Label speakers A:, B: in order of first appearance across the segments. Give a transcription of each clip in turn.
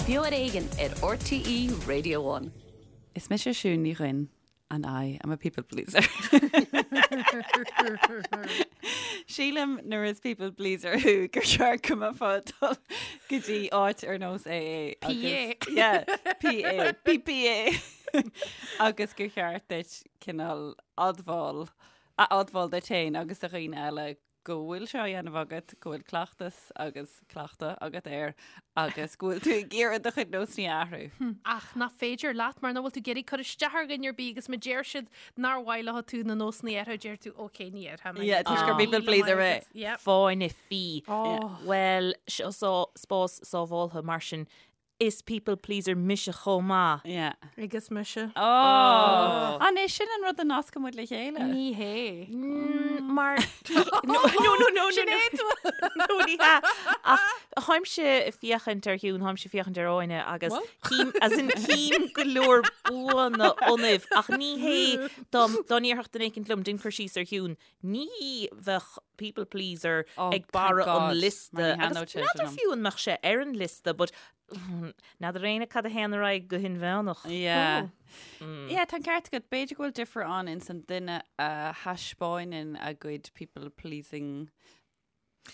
A: Beo ar Éigean ar RTÉ Radio One.
B: Is mise Siún Ní Dhuinn and I am a people pleaser. Sílim nuair is people pleaser thú gur cheart go mbeifeá ag dul go dtí áit ar nós AA
C: PA.
B: Yeah, PA, PPA agus gur cheart duit cineál admháil a admháil duit féin agus do dhaoine eile go bhfuil sé á dhéanamh agat, go bhfuil cleachtas agus cleachtadh agat air agus go bhfuil tú ag iarraidh do chuid nósanna a athrú.
C: Ach nach féidir leat mar nach bhfuil tú ag iarraidh cur isteach ar dhuine ar bith agus má deir siad nár mhaith leo tú na nósanna a athrú, deir tú ok ní athróidh mé.
B: Yeah, toisc gur people pleaser mé.
C: Yep.
D: Fáinne fí.
C: Oh.
D: Bhuel, seo spás sábháltha mar sin Is people pleaser mise chomh maith.
B: Yeah.
C: Agus mise.
B: Oh! An é sin an rud a nascann muid le chéile?
C: Ní hé.
D: Mar No, no, no, no,
C: Sin
D: no.
C: é tú.
D: No, ní hea. Ach tháimse ag féachaint ar Shiún, tháimse ag féachaint ar Áine agus cím, as in cím go leor buanna ionaibh ach ní hé dá dá ndéarfadh duine éicint liom déan cur síos ar Shiún, ní bheadh people pleaser
B: Oh,
D: ag barra
B: thank God.
D: an liosta.
B: Mar ní
D: Agus
B: thaitneodh sé sin
D: n'fheadar
B: liom.
D: fiú an mbeadh sé ar an liosta, but n'fheadar éinne cad a théann ar aghaidh go hinmheánach.
B: Yeah. Yeah, tá an ceart agat. B'fhéidir go bhfuil difear ann ins an duine a thaispeáineann a gcuid people pleasing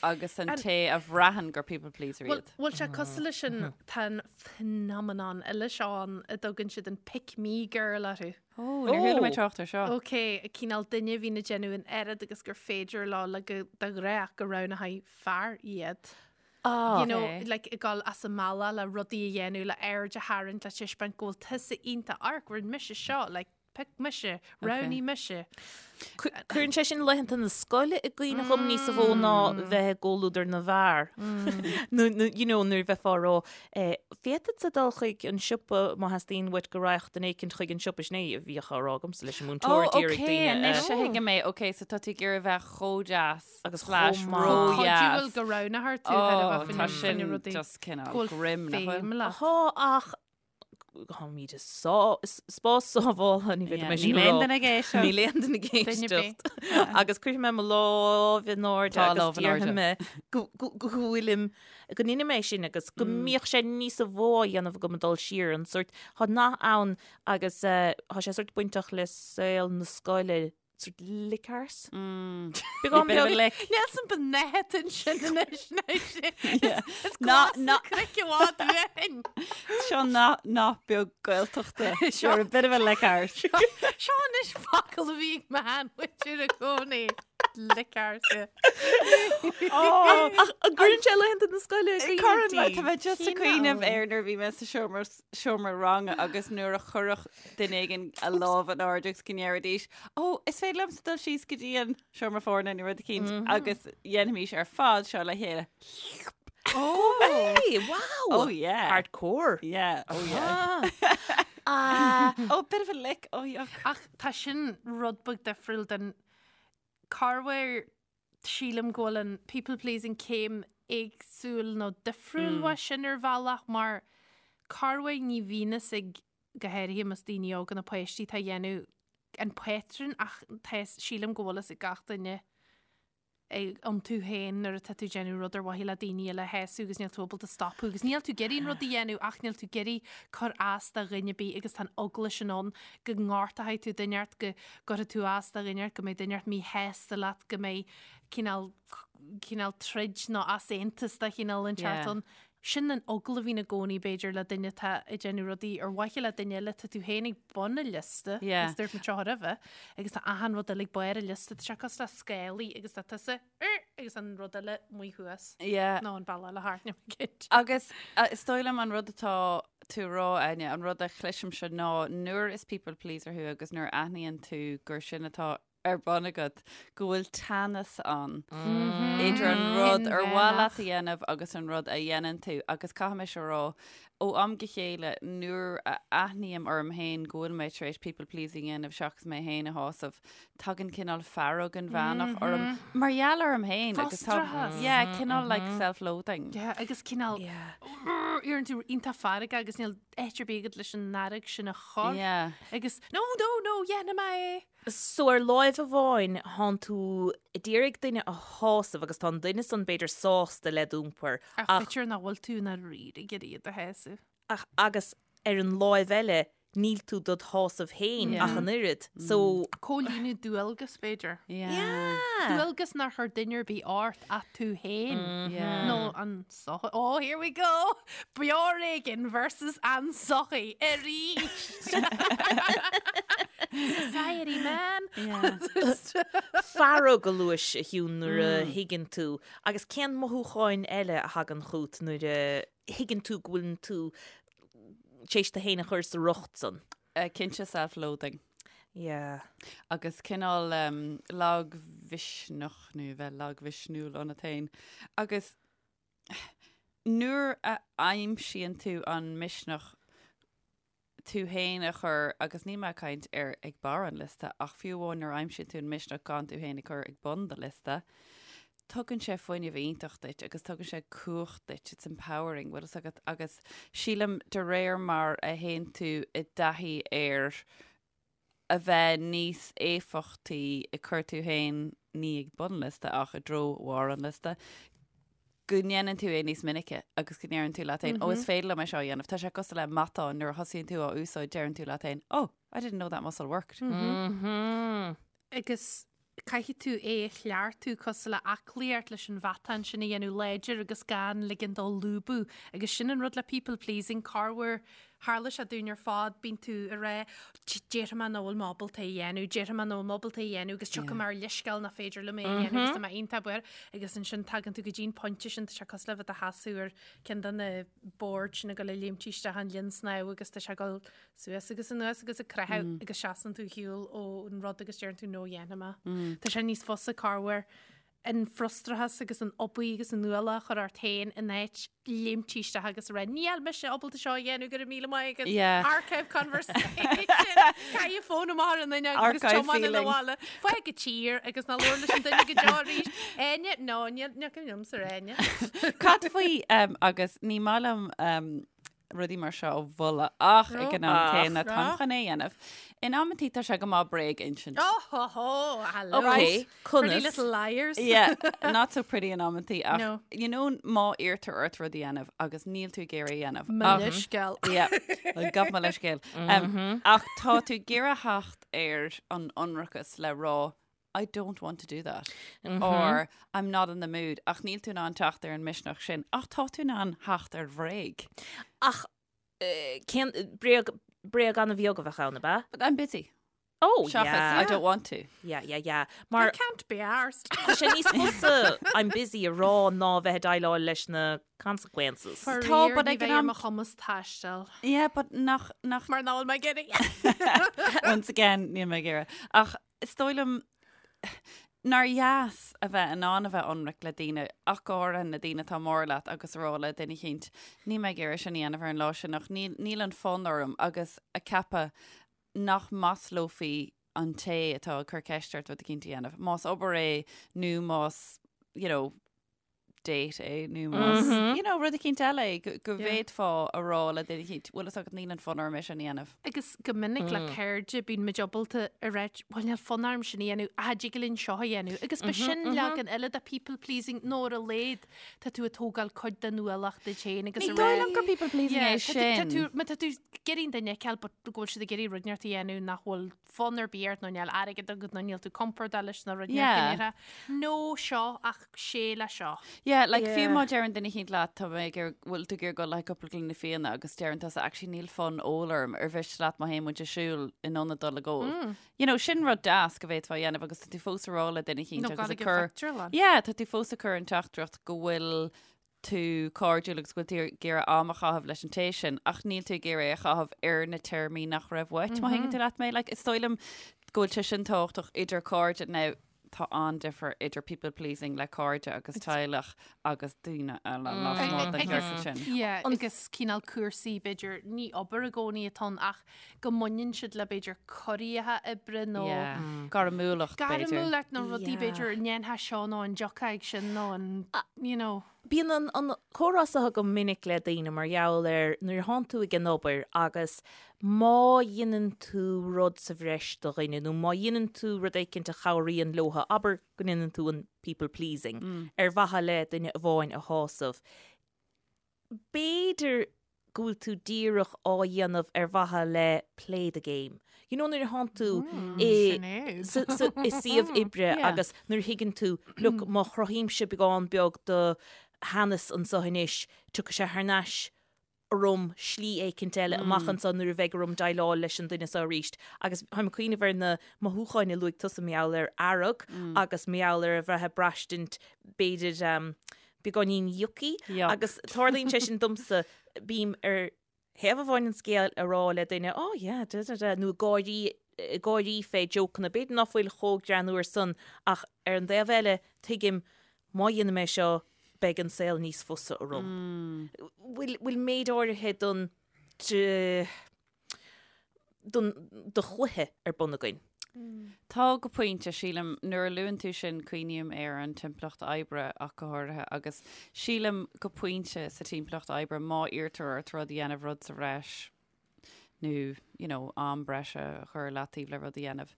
B: agus an té a bhraitheann gur people pleaser
C: Bhfuil
B: iad.
C: bhfuil sé cosúil leis sin tá an phenomenon eile seo ann a dtugann siad an pick me girl orthu.
B: Ó, níor chuala mé
D: Ó.
B: trácht ar seo.
C: Ok, cineál duine a bhíonn ag déanamh an oiread agus gur féidir leo le go de ghnáth go roghnóidh fear iad.
D: Ah.
C: You know,
B: Ok.
C: like ag dul as a mbealach le rudaí a dhéanamh, le aird a tharraingt, le taispeáint go bhfuil tusa iontach, amharc, rinne mise seo, like, Pioc mise, roghnaigh mise.
D: Cuireann sé sin laethanta na scoile i gcuimhne dhom níos mó ná bheith i gcomhluadar na bhfear. Nó, you know, nuair a bheifeá ag rá, féadfadsa dul chuig an siopa má theastaíonn uait go raghadh duine éicint chuig an siopa, sin é a bhíodh á rá agamsa leis an múinteoir,
B: Ó,
D: d'iarraidh
B: ok,
D: daoine a.
B: anois a thuigim é. Ok, so tá tú ag iarraidh bheith chomh deas
D: Agus
B: slash
D: chomh maith.
B: ródheas.
C: Cuidiúil go roghnófar tú
B: Ó,
C: ar a bheith
B: tá
C: faoina
B: sin
C: rudaí.
B: just cineál
C: Go bhfuil
B: grim, nach bhfuil?
C: feidhm leat.
D: Tá ach Táimid i spás sábháltha, ní bheidh mé sin
B: Níl
D: a rá.
B: aon duine ag éisteacht.
D: Níl aon duine ag éisteacht. Agus cuirfidh mé mo lámh in airde
B: Tá
D: agus
B: lámh in airde.
D: déarfaidh mé go go go bhfuilim, go ndeinim é sin agus go mbíodh sé níosa mhó á dhéanamh agam ag dul siar an sórt, tá nath ann agus tá sé sórt bainteach le saol na scoile, Sort lick arse.
B: Beagán beag lick.
C: Níl san b'nehet ansin anois Is
B: Ná-
C: glas
B: ná-
C: craic i bhfad uainn.
B: Seo nath nath beag Gaeltachta. You're a bit of a lick arse.
C: Seo anois focal a bhí ag m'sheanmhuintir i gcónaí. Lick arse.
B: Oh,
D: Ach an gcuireann sé laethanta na scoile i gcuimhne
B: Cuireann
D: di?
B: tá mé just ag cuimhneamh air nuair a bhí mé sa seomra seomra ranga agus nuair a chuirfeadh duine éigin a lámh in airde agus go ndéarfaidís, Ó, is féidir liomsa dul síos go dtí an seomra foirne nó rud eicínt agus dhéanfaimis ar fad seo le chéile.
D: Oh, hey, wow!
B: Oh yeah.
D: Hardcore.
B: Yeah, oh yeah.
D: Ah.
B: Oh, bit of a lick, oh yuck.
C: Ach tá sin rud beag difriúil den corruair sílim go bhfuil an people pleasing céim éagsúil nó difriúil uaidh sin ar bhealach mar corruair ní bhíonn fhios ag go háirithe más daoine óga nó páistí atá a dhéanamh an patrún ach tá sílim go bhfuil fhios ag gach duine iontu féin nuair atá tú ag déanamh rud ar mhaithe le daoine eile a shásamh agus níl tú ábalta stopadh agus níl tú ag iarraidh an rud a dhéanamh ach níl tú ag iarraidh cur as do dhuine ar bith agus tá an eagla sin ann go ngortóidh tú duine ort, go gcuirfidh tú as do dhuine ort, go mbeidh duine ort míshásta leat, go mbeidh cineál cineál troid nó easaontas de chineál inteacht ann. Sin an eagla a bhíonn i gcónaí, b'fhéidir, le duine atá ag déanamh rudaí ar mhaithe le duine eile, tá tú féin ag bun an liosta,
B: Yeah.
C: agus dúirt muid seo roimhe, agus tá achan rud eile ag barr an liosta, tá sé cosúil le scálaí agus tá tusa, "Er", agus an rud eile amuigh thuas.
B: Yeah.
C: Nó an bealach eile thart, níl mé cinnte.
B: Agus is dóigh liom an rud atá tú a rá, Áine, an rud a chloisimse ná nuair is people pleaser thú agus nuair a aithníonn tú gur sin atá ar bun agat, go bhfuil teannas ann idir an rud ar mhaith leat a dhéanamh agus an rud a dhéanann tú. Agus caithfidh mise a rá, ó am go chéile, nuair a aithním orm féin go bhfuil mé tar éis people pleasing a dhéanamh seachas mé féin a shásamh, tagann cineál fearg inmheánach orm mar gheall orm féin. Agus tá,
C: Frustrachas.
B: yeah, cineál like self-loathing.
C: Yeah, agus cineál, éiríonn tú iontach feargach agus níl áit ar bith agat leis an fhearg sin a chur.
B: Yeah.
C: Agus, no, no, no, dhéanfaidh mé é!
D: So ar láimh amháin thánn tú ag iarraidh duine a shásamh agus tá an duine san b'fhéidir sásta le d'iompar
C: Ach
D: ach
C: b'fhéidir nach bhfuil tú i ndáiríre ag iarraidh iad a shásamh.
D: Ach agus ar an láimh eile níl tú dod shásamh féin ach an oiread. So.
C: Comhlíonadh dualgas, b'fhéidir.
D: Yeah.
C: Dualgas nár chuir duine ar bith ort ach tú féin. Nó an sochaí. Oh, here we go! Beo ar Éigean versus an sochaí arís! Society, man!
D: Fearg a luais, a Shiún, nuair a thuigeann tú. Agus cén mothúcháin eile a thagann chugat nuair a thuigeann tú go bhfuileann tú tar éis tú féin a chur sa riocht san?
B: Cinnte self-loathing.
D: Yeah.
B: Agus cineál lagmhisneach nó bheith lagmhisniúil ionat féin. Agus nuair a aimsíonn tú an misneach tú féin a chur, agus níl mé ag caint ar ag barr an liosta, ach fiú amháin nuair a aimsíonn tú an misneach gan tú féin a chur ag bun do liosta, tugann sé fuinneamh iontach duit agus tugann sé cumhacht duit, it's empowering, bhfuil fhios agat, agus sílim de réir mar a théann tú i dtaithí ar a bheith níos éifeachtaí ag cur tú féin ní ag bun an liosta ach i dtreo bharr an liosta, go ndéanann tú é níos minice agus go ndeireann tú leat féin, ó is féidir liom é seo a dhéanamh. Tá sé cosúil le matán, nuair a thosaíonn tú á úsáid deireann tú leat féin, oh, I didn't know that muscle worked.
C: Agus caithfidh tú é a chleachtadh cosúil le aclaíocht leis an mhatán sin a dhéanamh láidir agus gan ligean dó lúbadh. Agus sin an rud le people pleasing, corruair tharla sé dúinn ar fad, bíonn tú ag rá déarfaidh mé nach bhfuil mé ábalta é a dhéanamh, déarfaidh mé nach bhfuil mé ábalta é a dhéanamh agus tiocfaidh mé ar leithscéal nach féidir liom é a dhéanamh agus tá mé iontach buartha agus ansin tagann tú go dtí an pointe sin, tá sé cosúil le bheith i do sheasamh ar ceann de na boird sin ag dul ag léimt isteach an linn snámha agus tá sé ag dul suas agus anuas agus ag creathadh agus seasann tú ar shiúl ón rud agus deireann tú no dhéanfaidh mé. Tá sé níos fusa corruair an frustrachas agus an obair agus an ualach a chur ort féin in áit léimt isteach agus a rá níl mise ábalta seo a dhéanamh go raibh míle maith agat.
B: Yeah.
C: Archive conversation. Caith an fón amach ar an fhuinneog agus
B: Archive
C: tiomáin
B: feeling.
C: abhaile. Fág an tír agus ná labhair leis an duine go deo arís. Áine? No, níl níl cuimhin liomsa ar Áine.
B: Cad faoi um, agus ní maith liom um, rudaí mar seo a mholadh ach ag an am céanna táim chun é a dhéanamh. In amantaí tá sé go maith bréag a insint.
C: Oh ho ho, hello.
D: Ok,
C: Pretty
D: conas?
C: little liars.
B: Yeah, not so pretty in amantaí ach
C: No.
B: you know má iarrtar ort rud a dhéanamh agus níl tú ag iarraidh a dhéanamh.
C: Mo
B: Ach-
C: leithscéal.
B: Yeah, gabh mo leithscéal. Um, ach tá tú ag iarraidh theacht ar an ionracas le rá I don't want to do that or I'm not in the mood ach níl tú in ann teacht ar an misneach sin ach tá tú in ann theacht ar bhréag.
D: Ach eh, cén bréag bréag an-bheag a bheadh ann, ab ea?
B: But I'm busy.
D: Oh,
B: Seachas
D: yeah.
B: I don't want to.
D: Yeah, yeah, yeah.
C: I
D: Mar
C: can't be arsed.
D: tá sé níos fusa I'm busy a rá ná bheith ag déileáil leis na consequences.
B: Tá, but
C: ní
B: ag an
C: bheidh ar
B: am-
C: mo chumas taisteal.
B: Yeah, but nach nach
C: Mar nach bhfuil mé ag iarraidh.
B: Once again, níl mé ag iarraidh. Ach is dóigh liom nár dheas a bheith in ann a bheith ionraic le daoine, ach go háirithe na daoine atá mór leat agus a rá le duine eicínt, níl mé ag iarraidh sin a dhéanamh ar an lá sin ach níl, níl an fonn orm agus a ceapadh nach maslófaí an té atá ag cur ceist ort rud eicínt a dhéanamh. Más obair é nó más, you know, date é nó más, you know, rud eicínt eile é go, go bhféadfá a rá le duine eicínt, bhfuil fhios agat níl an fonn orm é sin a dhéanamh.
C: Agus go minic le cairde bíonn muid ábalta a rá, bhuel níl fonn orm sin a dhéanamh, ach dtig linn seo a dhéanamh. Agus ba sin leagan eile de people pleasing nó ar a laghad tá tú ag tógáil cuid den ualach duit féin agus
B: Ní
C: a
B: dóigh
C: rá
B: liom gur people pleasing
C: Yeah,
B: é
C: tá tú- tá
B: sin.
C: tú- má tá tú ag iarraidh an duine a fheiceáil but go bhfuil siad ag iarraidh rud inteacht a dhéanamh nach bhfuil fonn ar bith ort nó níl airgead agat nó níl tú compordach leis na rud
B: Yeah.
C: yeah. No seo ach sé le seo.
B: Yeah, like fiú
D: Yeah.
B: má deireann duine eicínt leat tá mé ag iarraidh- bhfuil tú ag iarraidh dul le cúpla gloine fíona agus deireann tusa actually níl fonn óil orm ar mhiste leat má théann muid ag siúl in ionad dul ag ól. You know, sin rud deas go bhféadfá a dhéanamh agus tá tú fós ag rá le duine eicínt
C: Nó
B: agus
C: gabháil
B: ag
C: ag an
B: cur
C: phictiúrlann.
B: Yeah, tá tú fós ag cur an teachtaireacht go bhfuil tú cairdiúil agus go bhfuil tú ag iarraidh am a chaitheamh leis an té sin, ach níl tú ag iarraidh é a chaitheamh ar na téarmaí nach raibh uait, má thuigeann tú leat mé. Like, is dóigh liom go bhfuil sé sin tábhachtach idir cairde. Now, tá an-difear idir people pleasing le cairde agus teaghlach agus daoine eile lasmuigh den chiorcal sin.
C: Yeah, agus cineál cúrsaí b'fhéidir ní obair i gcónaí atá ann ach go mbaineann siad le b'fhéidir corraithe oibre nó
B: Yeah. Gairmiúlacht, b'fhéidir.
C: gairmiúlacht nó rudaí
D: Yeah.
C: b'fhéidir an ndéanfá seo nó an dtiocfá ag sin nó an, you know.
D: Bíonn an, an comhrá seo go minic le daoine mar gheall ar nuair a thánn tú ag an obair agus má dhéanann tú rud sa bhreis do dhuine nó má dhéanann tú rud éicint a chabhraíonn leotha, abair go ndéanann tú an people pleasing ar mhaithe le duine amháin a shásamh. B'fhéidir. go bhfuil tú díreach á dhéanamh ar mhaithe le play the game. You know nuair a thánn tú i i suíomh oibre agus nuair a thuigeann tú, look, má chruthaímse beagán beag de theannas anseo anois, tiocfaidh sé thar n-ais orm slí éicint eile amach anseo nuair a bheidh orm déileáil leis an duine seo arís. Agus táim ag cuimhneamh ar na mothúcháin a luaigh tusa mar gheall ar fhearg agus mar gheall ar a bheith ag braistint b'fhéidir beagáinín yucky agus tarlaíonn sé sin domsa, bím ar thaobh amháin an scéil ag rá le duine oh yeah da da da nó ag gáirí ag gáirí fé jokeanna, b'fhéidir ná fuil chomh greannmhar san ach ar an dtaobh eile tuigim má dhéanaim é seo beidh an saol níos fusa orm. Bhfuil bhfuil méid áirithe don don do chluiche ar bun againn.
B: Tá go pointe, sílim, nuair a luann tú sin cuimhním ar an timpeallacht oibre ach go háirithe agus sílim go pointe sa timpeallacht oibre má iarrtar ort rud a dhéanamh rud sa bhreis nó you know, am breise a chur i leataobh le rud a dhéanamh.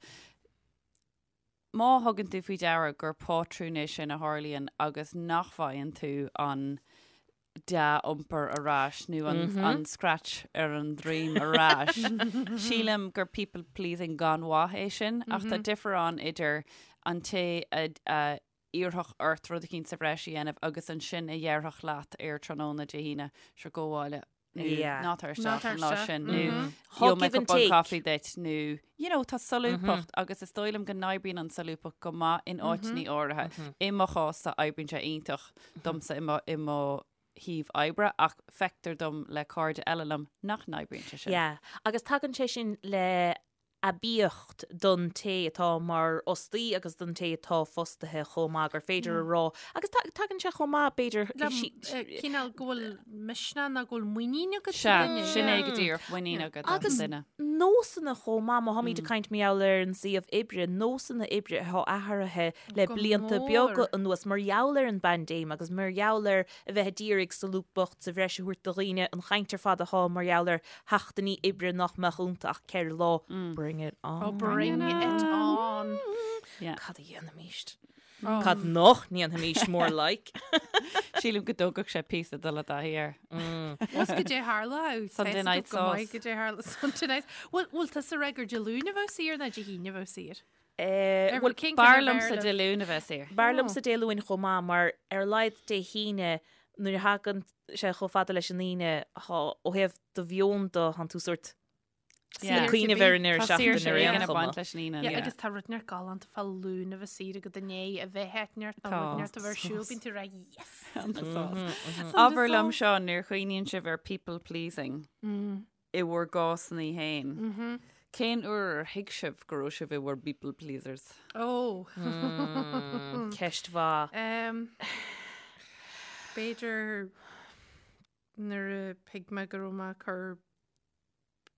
B: Má thugann tú faoi deara gur pátrún é sin a tharlaíonn agus nach bhfaigheann tú an dea-iompar ar ais nó an scratch ar an droim ar ais, sílim gur people pleasing gan mhaith é sin ach tá difear ann idir an té a iarrfadh ort rud eicínt sa bhreis a dhéanamh agus ansin a dhéarfadh leat ar tráthnóna Dé hAoine, sure gabh abhaile. nó ná tar isteach an lá sin nó gheobhaidh mé cupán caife duit nó you know tá solúbthacht agus is dóigh liom go n-oibríonn an solúbthacht go maith in áiteanna áirithe. I mo chás-sa oibríonn sé iontach domsa i mo i mo shuíomh oibre ach feictear dom le cairde eile liom nach n-oibríonn sé sin.
D: Yeah, agus tagann sé sin le aibíocht don té atá mar fhostaí agus don té atá fostaithe chomh maith, gur féidir a rá, agus tagann sé chomh maith, b'fhéidir,
C: cineál go bhfuil misneach nó go bhfuil muinín agat
B: sa duine. Sea, sin é go díreach, muinín agat as an duine.
D: Agus nósanna chomh maith, má tháimid ag caint mar gheall ar an suíomh oibre, nósanna oibre atá athraithe le blianta beaga anuas mar gheall ar an bpaindéim agus mar gheall ar a bheith a d'iarraidh solúbthacht sa bhreis a thabhairt do dhaoine, an chaint ar fad atá mar gheall ar sheachtainí oibre nach mbeadh iontu ach 4 lá. Bring it on.
C: Oh, bring it on.
B: Yeah.
D: Cad a dhéanfaimíst? Cad nach ndéanfaimíst more like?
B: Sílim go dtógfadh sé píosa dul i dtaithí air.
C: Bhfuil goidé tharla
B: Sunday night sauce.
C: Goidé tharla Sunday night. Bhfuil bhfuil tusa ag rá gur Dé Luain a bheadh saor nó Dé hAoine a bheadh saor?
D: Bhuel,
B: b'fhearr liomsa Dé Luain a bheith saor.
D: B'fhearr liomsa Dé Luain chomh maith mar ar a laghad Dé hAoine nuair a thagann sé chomh fada leis an Aoine thá ó thaobh do mheon de thánn tú sórt ag cuimhneamh ar an ndeireadh seachtaine ar aon chuma.
B: Leis an Aoine.
C: Yeah, agus tá rud inteacht galánta fá Luan a bheith saor agat i ndiaidh a bheith áit inteacht nó rud inteacht a bheith ar siúl, bíonn tú ag rá yes!
B: Abair liom seo nuair a chuimhníonn sibh ar people pleasing. i bhur gcásanna féin, cén uair ar thuig sibh go raibh sibh i bhur bpeople pleasers?
C: Ó!
D: Ceist mhaith.
C: B'fhéidir nuair a thuig mé go raibh mé ag cur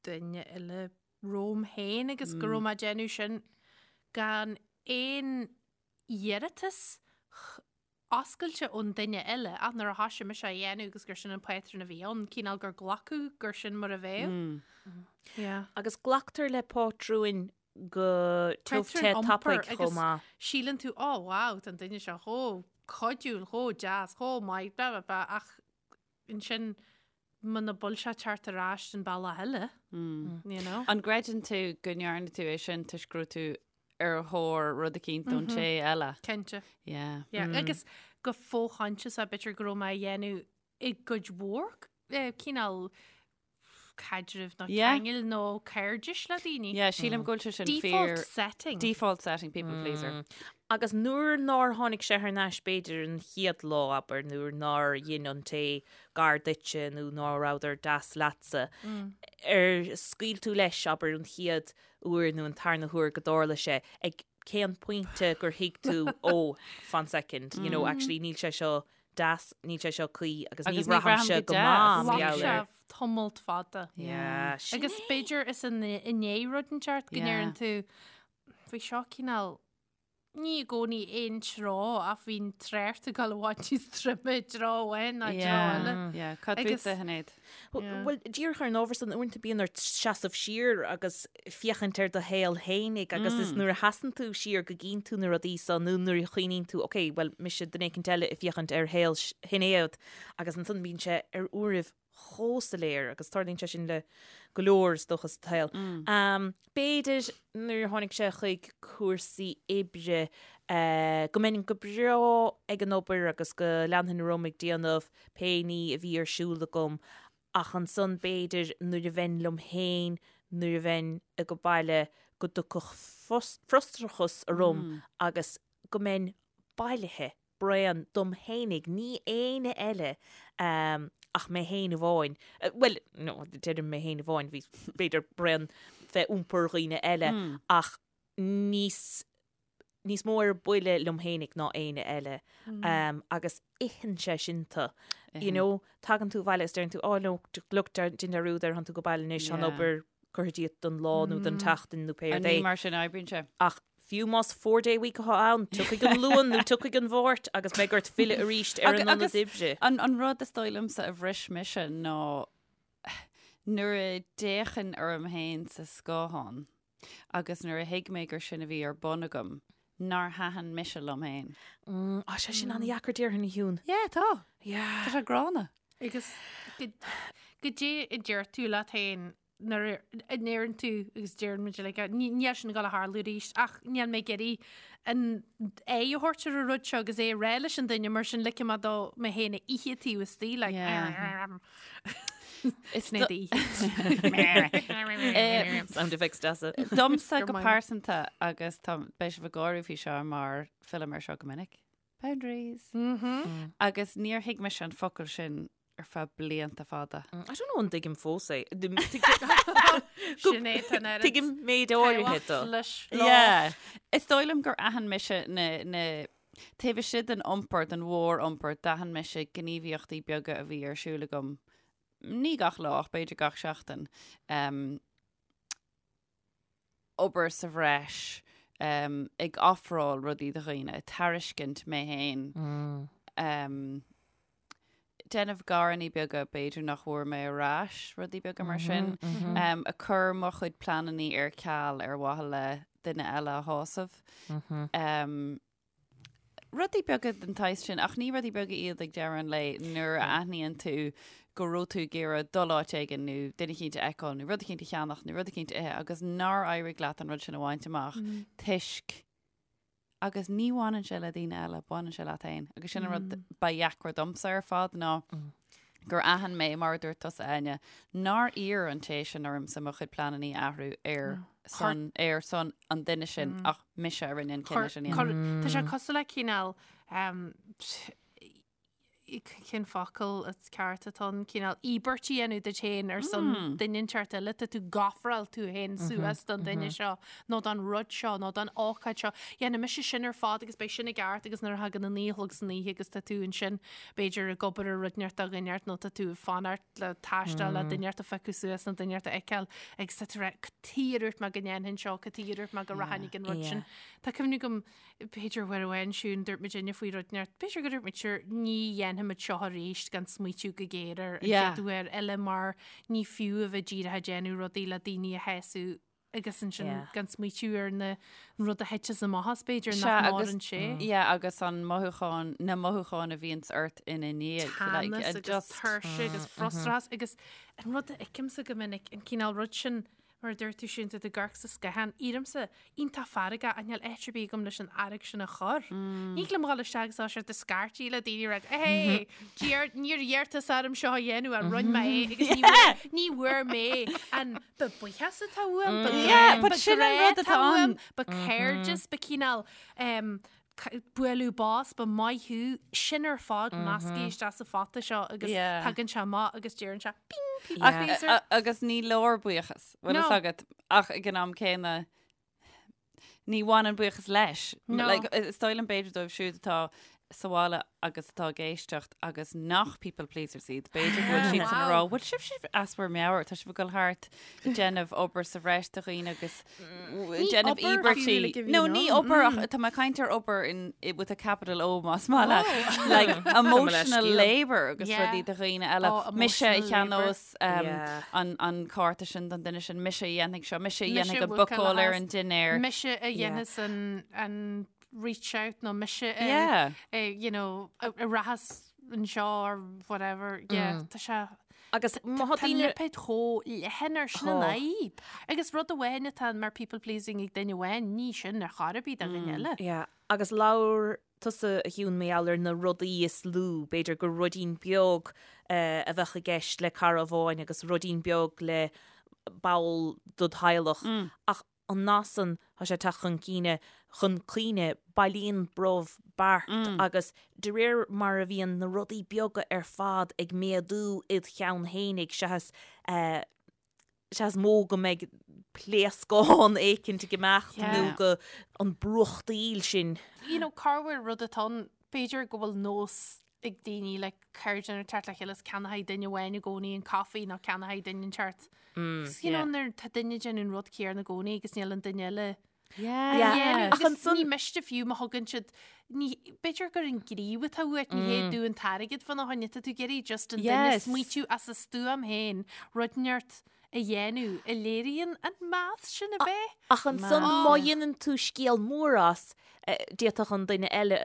C: duine eile romham féin agus go raibh mé ag déanamh sin gan aon iarratas oscailte ón duine eile ach nuair a thoisigh mise á dhéanamh agus gur sin an pátrún a bhí ann, cineál gur glacadh gur sin mar a bheadh. Yeah.
D: Agus glactar le pátrúin go tiubh te
C: Pátrún
D: tapaidh
C: iompair
D: chomh
C: agus
D: maith.
C: síleann tú, oh wow, tá an duine seo chomh cuidiúil, chomh deas, chomh maith, blah blah blah ach ansin muna bhfuil sé ag teacht ar ais an bealach eile, you know.
B: An gcreideann tú go ndearna tú é sin toisc go raibh tú ar thóir rud eicínt ón té eile?
C: Cinnte.
B: Yeah.
C: Yeah. Agus go fo-choinsiasach b'fhéidir go raibh mé á dhéanamh i gcuid mhór cineál caidrimh nó
B: Yeah.
C: ceangail nó cairdis le daoine.
B: Yeah, sílim go bhfuil sé sin
C: Default
B: fíor.
C: setting.
B: Default setting, people pleaser.
D: Agus nuair nár tháinig sé thar n-ais b'fhéidir an chéad lá, abair, nuair nár dhein an té gar duitse nó ná rabhadar deas leatsa, ar scaoil tú leis, abair, an chéad uair nó an tarna huair go dtarla sé, ag cén pointe gur thuig tú, oh, fan second, you know, actually níl sé seo deas, níl sé seo cuí agus ní
B: Agus ní
D: bhraithimse
B: bhraithim
D: go
B: go
D: maith
B: deas.
D: mar
C: Ghlac
D: gheall
C: sé
D: air.
C: tamalt fada.
D: Yeah, sin
C: Agus b'fhéidir is i ndiaidh rud inteacht go
B: Yeah.
C: ndeireann tú, bhí seo cineál, ní i gcónaí aon treo ach bhí an trácht ag dul i bhfad níos troime i dtreo amháin ná i dtreo eile.
B: Yeah, cad
C: Agus-
B: fútsa, a Shinéad?
D: Bhuel, díreach ar an ábhar san, uaireanta bíonn ort seasamh siar agus féachaint ar do shaol fhéinig agus is nuair a sheasann tú siar go gcíonn tú na rudaí so nó nuair a chuimhníonn tú, ok, bhuel, mise duine éicint eile ag féachaint ar shaol Shinéad agus ansan bíonn sé ar uairibh. chomh soiléir agus tarlaíonn sé sin le go leor is dócha sa tsaol. B'fhéidir nuair a tháinig sé chuig cúrsaí oibre go mbeinn go breá ag an obair agus go leanfainn orm ag déanamh pé ní a bhí ar siúl agam ach ansan b'fhéidir nuair a bheinn liom féin, nuair a bheinn ag baile go dtiocfadh frustrachas orm agus go mbeinn bailithe. bréan dom fhéinig, ní éinne eile ach mé fhéin amháin. Bhuel, no, deirim mé fhéin amháin, bhí b'fhéidir bréan fé iompar dhaoine eile ach níos níos mó ar buile liom fhéinig ná éinne eile. Agus itheann sé sin tú. You know, tagann tú abhaile is deireann tú, oh no, look, déan dearúd air, tánn tú go baile anois, tá an obair curtha díot don lá nó don tseachtain nó pé rud é.
B: Ní mar sin a oibríonn sé.
D: Ach fiú más four day week atá ann, tiocfaidh an Luan nó tiocfaidh an Mháirt agus beidh ort filleadh arís ar an ionad oibre.
B: An rud is dóigh liomsa a bhris mise ná nuair a d'fhéachainn orm féin sa scáthán agus nuair a thuig mé gur sin a bhí ar bun agam, nár thaitin mise liom féin.
D: Tá sé sin an-dheacair déarfainn a Shiún.
C: Yeah, tá.
D: Yeah.
B: Tá sé gránna.
C: Agus goidé a deir tú leat féin nuair a ndeireann tú agus deireann muid like, níl sin ag dul a tharlú arís ach níl mé ag iarraidh an aghaidh a thabhairt ar an rud seo agus é a rá leis an duine mar sin ligfidh mé do mé féin a ithe taobh istigh like
B: Is
C: Sin é d'ithe.
D: Sound effects deasa.
B: Domsa go pearsanta agus tá beidh sibh ag gáire faoi seo mar fillim ar seo go minic. Boundaries. Agus níor thuig mise an focal sin ar feadh blianta fada.
D: I don't know an dtuigim fós é.
C: Sin é tá an oiread
D: Tuigim méid áirithe dó.
C: leis
B: Yeah. Is dóigh liom gur aithin mise na, na, taobh istigh den iompar, den mhór-iompar, d'aithin mise gníomhaíochtaí beaga a bhí ar siúl agam, ní gach lá ach b'fhéidir gach seachtain. Um, obair sa bhreis, ag ofráil rudaí do dhaoine, ag tairiscint mé féin, déanamh garannaí beaga b'fhéidir nach bhfuair mé ar ais, rudaí beaga mar sin, ag cur mo chuid pleanannaí ar ceal ar mhaithe le duine eile a shásamh. Rudaí beaga den tsaghas sin, ach ní rudaí beaga iad ag deireadh an lae nuair a aithníonn tú go raibh tú ag iarraidh dul áit éigin nó duine eicínt a fheiceáil nó rud eicínt a cheannach nó rud eicínt a ithe agus nár éirigh leat an rud sin a bhaint amach toisc agus ní bhaineann sé le daoine eile, baineann sé leat féin. Agus sin an rud ba dheacra domsa ar fad ná gur aithin mé, mar a dúirt tusa, Áine, nár iarr an té sin ormsa mo chuid pleanannaí a athrú ar son, ar son an duine sin ach mise a rinne an cinneadh sin a
C: dhéanamh. Tá sé cosúil le cineál, cén focal is ceart atá ann, cineál íobairt a dhéanamh duit féin ar son duine inteacht eile, tá tú ag ofráil tú féin suas don duine seo nó don rud seo nó don ócáid seo. Dhéanfaidh mise sin ar fad agus beidh sin i gceart agus nuair a thagann an 9 a chlog san oíche agus tá tú ansin b'fhéidir ag obair ar rud inteacht do dhuine inteacht nó tá tú ag fanacht le taisteal le duine inteacht a phiocadh suas nó duine inteacht a fheiceáil agus tá tú ag rá cad chuige ar dhúirt mé go ndéanfainn seo, cad chuige ar dhúirt mé go rachainn ag an rud sin. Tá cuimhne agam b'fhéidir uair amháin Siún dúirt muid inne faoi rud inteacht, b'fhéidir go dúirt muid sure ní dhéanfaimid seo arís gan smaoitiú go géar air an chéad uair eile mar ní fiú a bheith díreach ag déanamh rudaí le daoine a shásamh agus ansin gan smaoitiú ar na rud a thiteas amach as b'fhéidir nach
B: maireann sé. Yeah, agus an mothúchán, na mothúcháin a bhíonns ort ina ndiaidh.
C: Teannas agus tuirse agus frustrachas agus an rud a fheicimse go minic, an cineál rud sin mar a dúirt tú Siún, tú ag amharc sa scáthán, éirímse iontach feargach ach níl áit ar bith agam leis an fhearg sin a chur. Ní thig liom dhul isteach agus sort of scairtigh le daoine rá, hey, dear, níor iarr tusa orm seo a dhéanamh ach rinne mé é agus ní bhfuair, ní bhfuair mé an Ba buíochas atá uaim, ba
B: Yeah, but sin an rud atá ann.
C: ba cairdeas, ba cineál bualadh bos, ba maith thú, sin ar fad measctha isteach sa phota seo agus tagann sé amach agus deireann sé ping, people pleaser.
B: Agus ní leor buíochas, bhfuil fhios agat, ach ag an am céanna ní bhaineann buíochas leis.
C: No.
B: Like, is dóigh liom b'fhéidir dóibh siúd atá sa bhaile agus atá ag éisteacht agus nach people pleasers iad, b'fhéidir go bhfuil siad san ag rá, bhfuil sibh sibh as bhur meabhair, tá sibh ag dul thart ag déanamh obair sa bhreis do dhaoine agus
C: Ní
B: déanamh
C: obair
B: íobairtí.
C: fiú, like, a bhí
B: No,
C: ann.
B: ní obair ach tá mé ag caint ar obair in, with a capital O más maith leat. Like, emotional
D: scéal.
B: labour agus
C: Yeah.
B: rudaí do dhaoine eile.
C: Oh,
B: Mise a
C: emotional labour.
B: cheannós um,
D: Yeah.
B: an, an cárta sin don duine sin, mise a dhéanfaidh seo, mise a
C: Mise
B: dhéanfaidh an
C: a bhuacáil
B: bookáil ar
C: as.
B: an dinnéar.
C: Mise a dhéanfas an, an reach out nó mise a,
B: Yeah.
C: a, you know, a, a rachas anseo or whatever. Yeah, tá sé.
D: Agus má
C: tá lipéad chomh leathan ar sin an fhadhb. Agus rud amháin atá mar people pleasing ag duine amháin, ní sin ar chor ar bith do dhuine eile.
D: Yeah. Agus labhair tusa a Shiún mar gheall ar na rudaí is lú, b'fhéidir gur ruidín beag a bheadh i gceist le cara amháin agus ruidín beag le ball dod theaghlach. Ach an nath san, tá sé ag teacht chun cinn, chun cuimhne, bailíonn brobh beart agus de réir mar a bhíonn na rudaí beaga ar fad ag méadú id cheann fhéinig, seachas, seachas mó go mbeidh pléascán éicint ag imeacht nó go an brúchtaíl sin.
C: You know, corruair rud atá ann, b'fhéidir go bhfuil nós ag daoine le cairde nuair teacht le chéile is ceannóidh duine amháin i gcónaí an caife nó ceannóidh duine inteacht. Agus you know nuair tá duine ag déanamh an rud céanna i gcónaí agus níl an duine eile
B: Yeah.
C: Yeah.
D: Ach
C: Agus
D: ansan-
C: ní miste fiú má thugann siad ní b'fhéidir gur an gníomh atá uait ní hé dú an t-airgead fána choinne tá tú ag iarraidh just an duine
B: Yes.
C: smaoitiú as a stuaim féin rud inteacht a dhéanamh a léiríonn an meas sin a bheith.
D: Ach ansan má dhéanann tú scéal mór as, eh, d'fhéadfadh an duine eile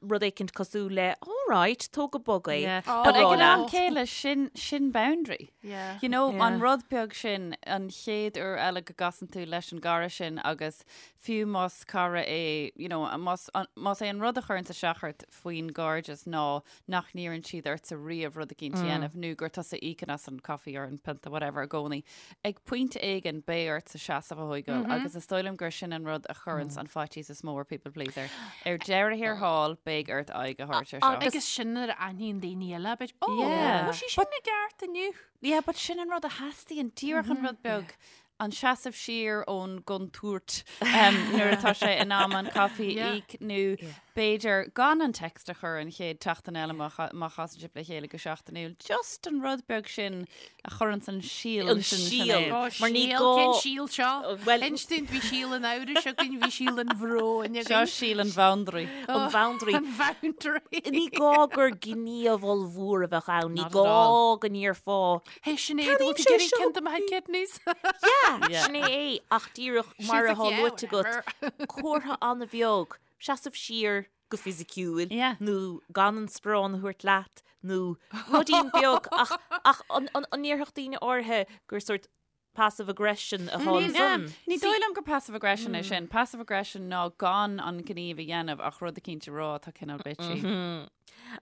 D: rud éicint cosúil le all right, tóg go bog é.
B: Yeah.
C: Oh.
B: But ag an am
C: Oh.
B: céile sin sin boundary.
C: Yeah.
B: You know,
D: Yeah.
B: an rud beag sin an chéad uair eile go gcasann tú leis an gcara sin agus fiú más cara é, you know, más, an, más é an rud a chuireann isteach ort faoin gcairdeas ná nach n-iarrann siad ortsa riamh rud eicínt a dhéanamh nó gur tusa a íocann as an coffee or an pionta whatever i gcónaí. Ag pointe éigin beidh ortsa seasamh a thógáil agus is dóigh liom gur sin an rud a chuireanns an faitíos is mó ar people pleaser. Ar deireadh thiar thall beidh ort aghaidh a thabhairt ar seo.
C: Agus sin nuair a aithníonn daoine eile, b'fhéidir, ó,
B: Yeah.
C: bhfuil sí sin i gceart inniu.
B: Yeah, but sin an rud a theastaíonn, díreach an rud beag, an seasamh siar ón gcontúirt nuair atá sé in am an caife a
C: Yeah.
B: íoc nó b'fhéidir gan an text a chur an chéad tseachtain eile má má chasann sibh le chéile go seachtainiúil. Just an rud beag sin a chuireann an síol
D: An
B: sin
D: síol.
B: Sinéad.
C: Ó,
D: Mar ní
C: síol,
D: gá-
C: cén síol seo?
D: Well-
C: Inis dúinn, bhí síol an amhrais againn, bhí síol an bhróin
B: Seo
C: againn.
B: síol an boundary.
D: An boundary.
C: An boundary.
D: Ní gá gur gníomh ollmhór a bheadh ann, ní
B: Not at
D: gá
B: all.
D: go ndéarfá
C: Hey Sinéad,
D: Ceannaím
C: bhfuil tú
D: sé
C: ag iarraidh
D: seo.
C: ceann de mo kidneys?
D: Yeah,
B: Yeah.
D: sin é é, ach díreach mar
C: She's
D: atá
C: like, yeah,
D: luaite agat,
C: whatever.
D: comhartha an-bheag, seasamh siar go fisiciúil,
B: Yeah.
D: nó gan an sparán a thabhairt leat, nó ruidín beag, ach, ach an, an, an ndéarfadh daoine áirithe gur sort passive aggression atá ansan?
B: Ní dóigh liom gur passive aggression é sin. Passive aggression ná gan an gníomh a dhéanamh ach rud eicínt a rá atá cineál bitchy.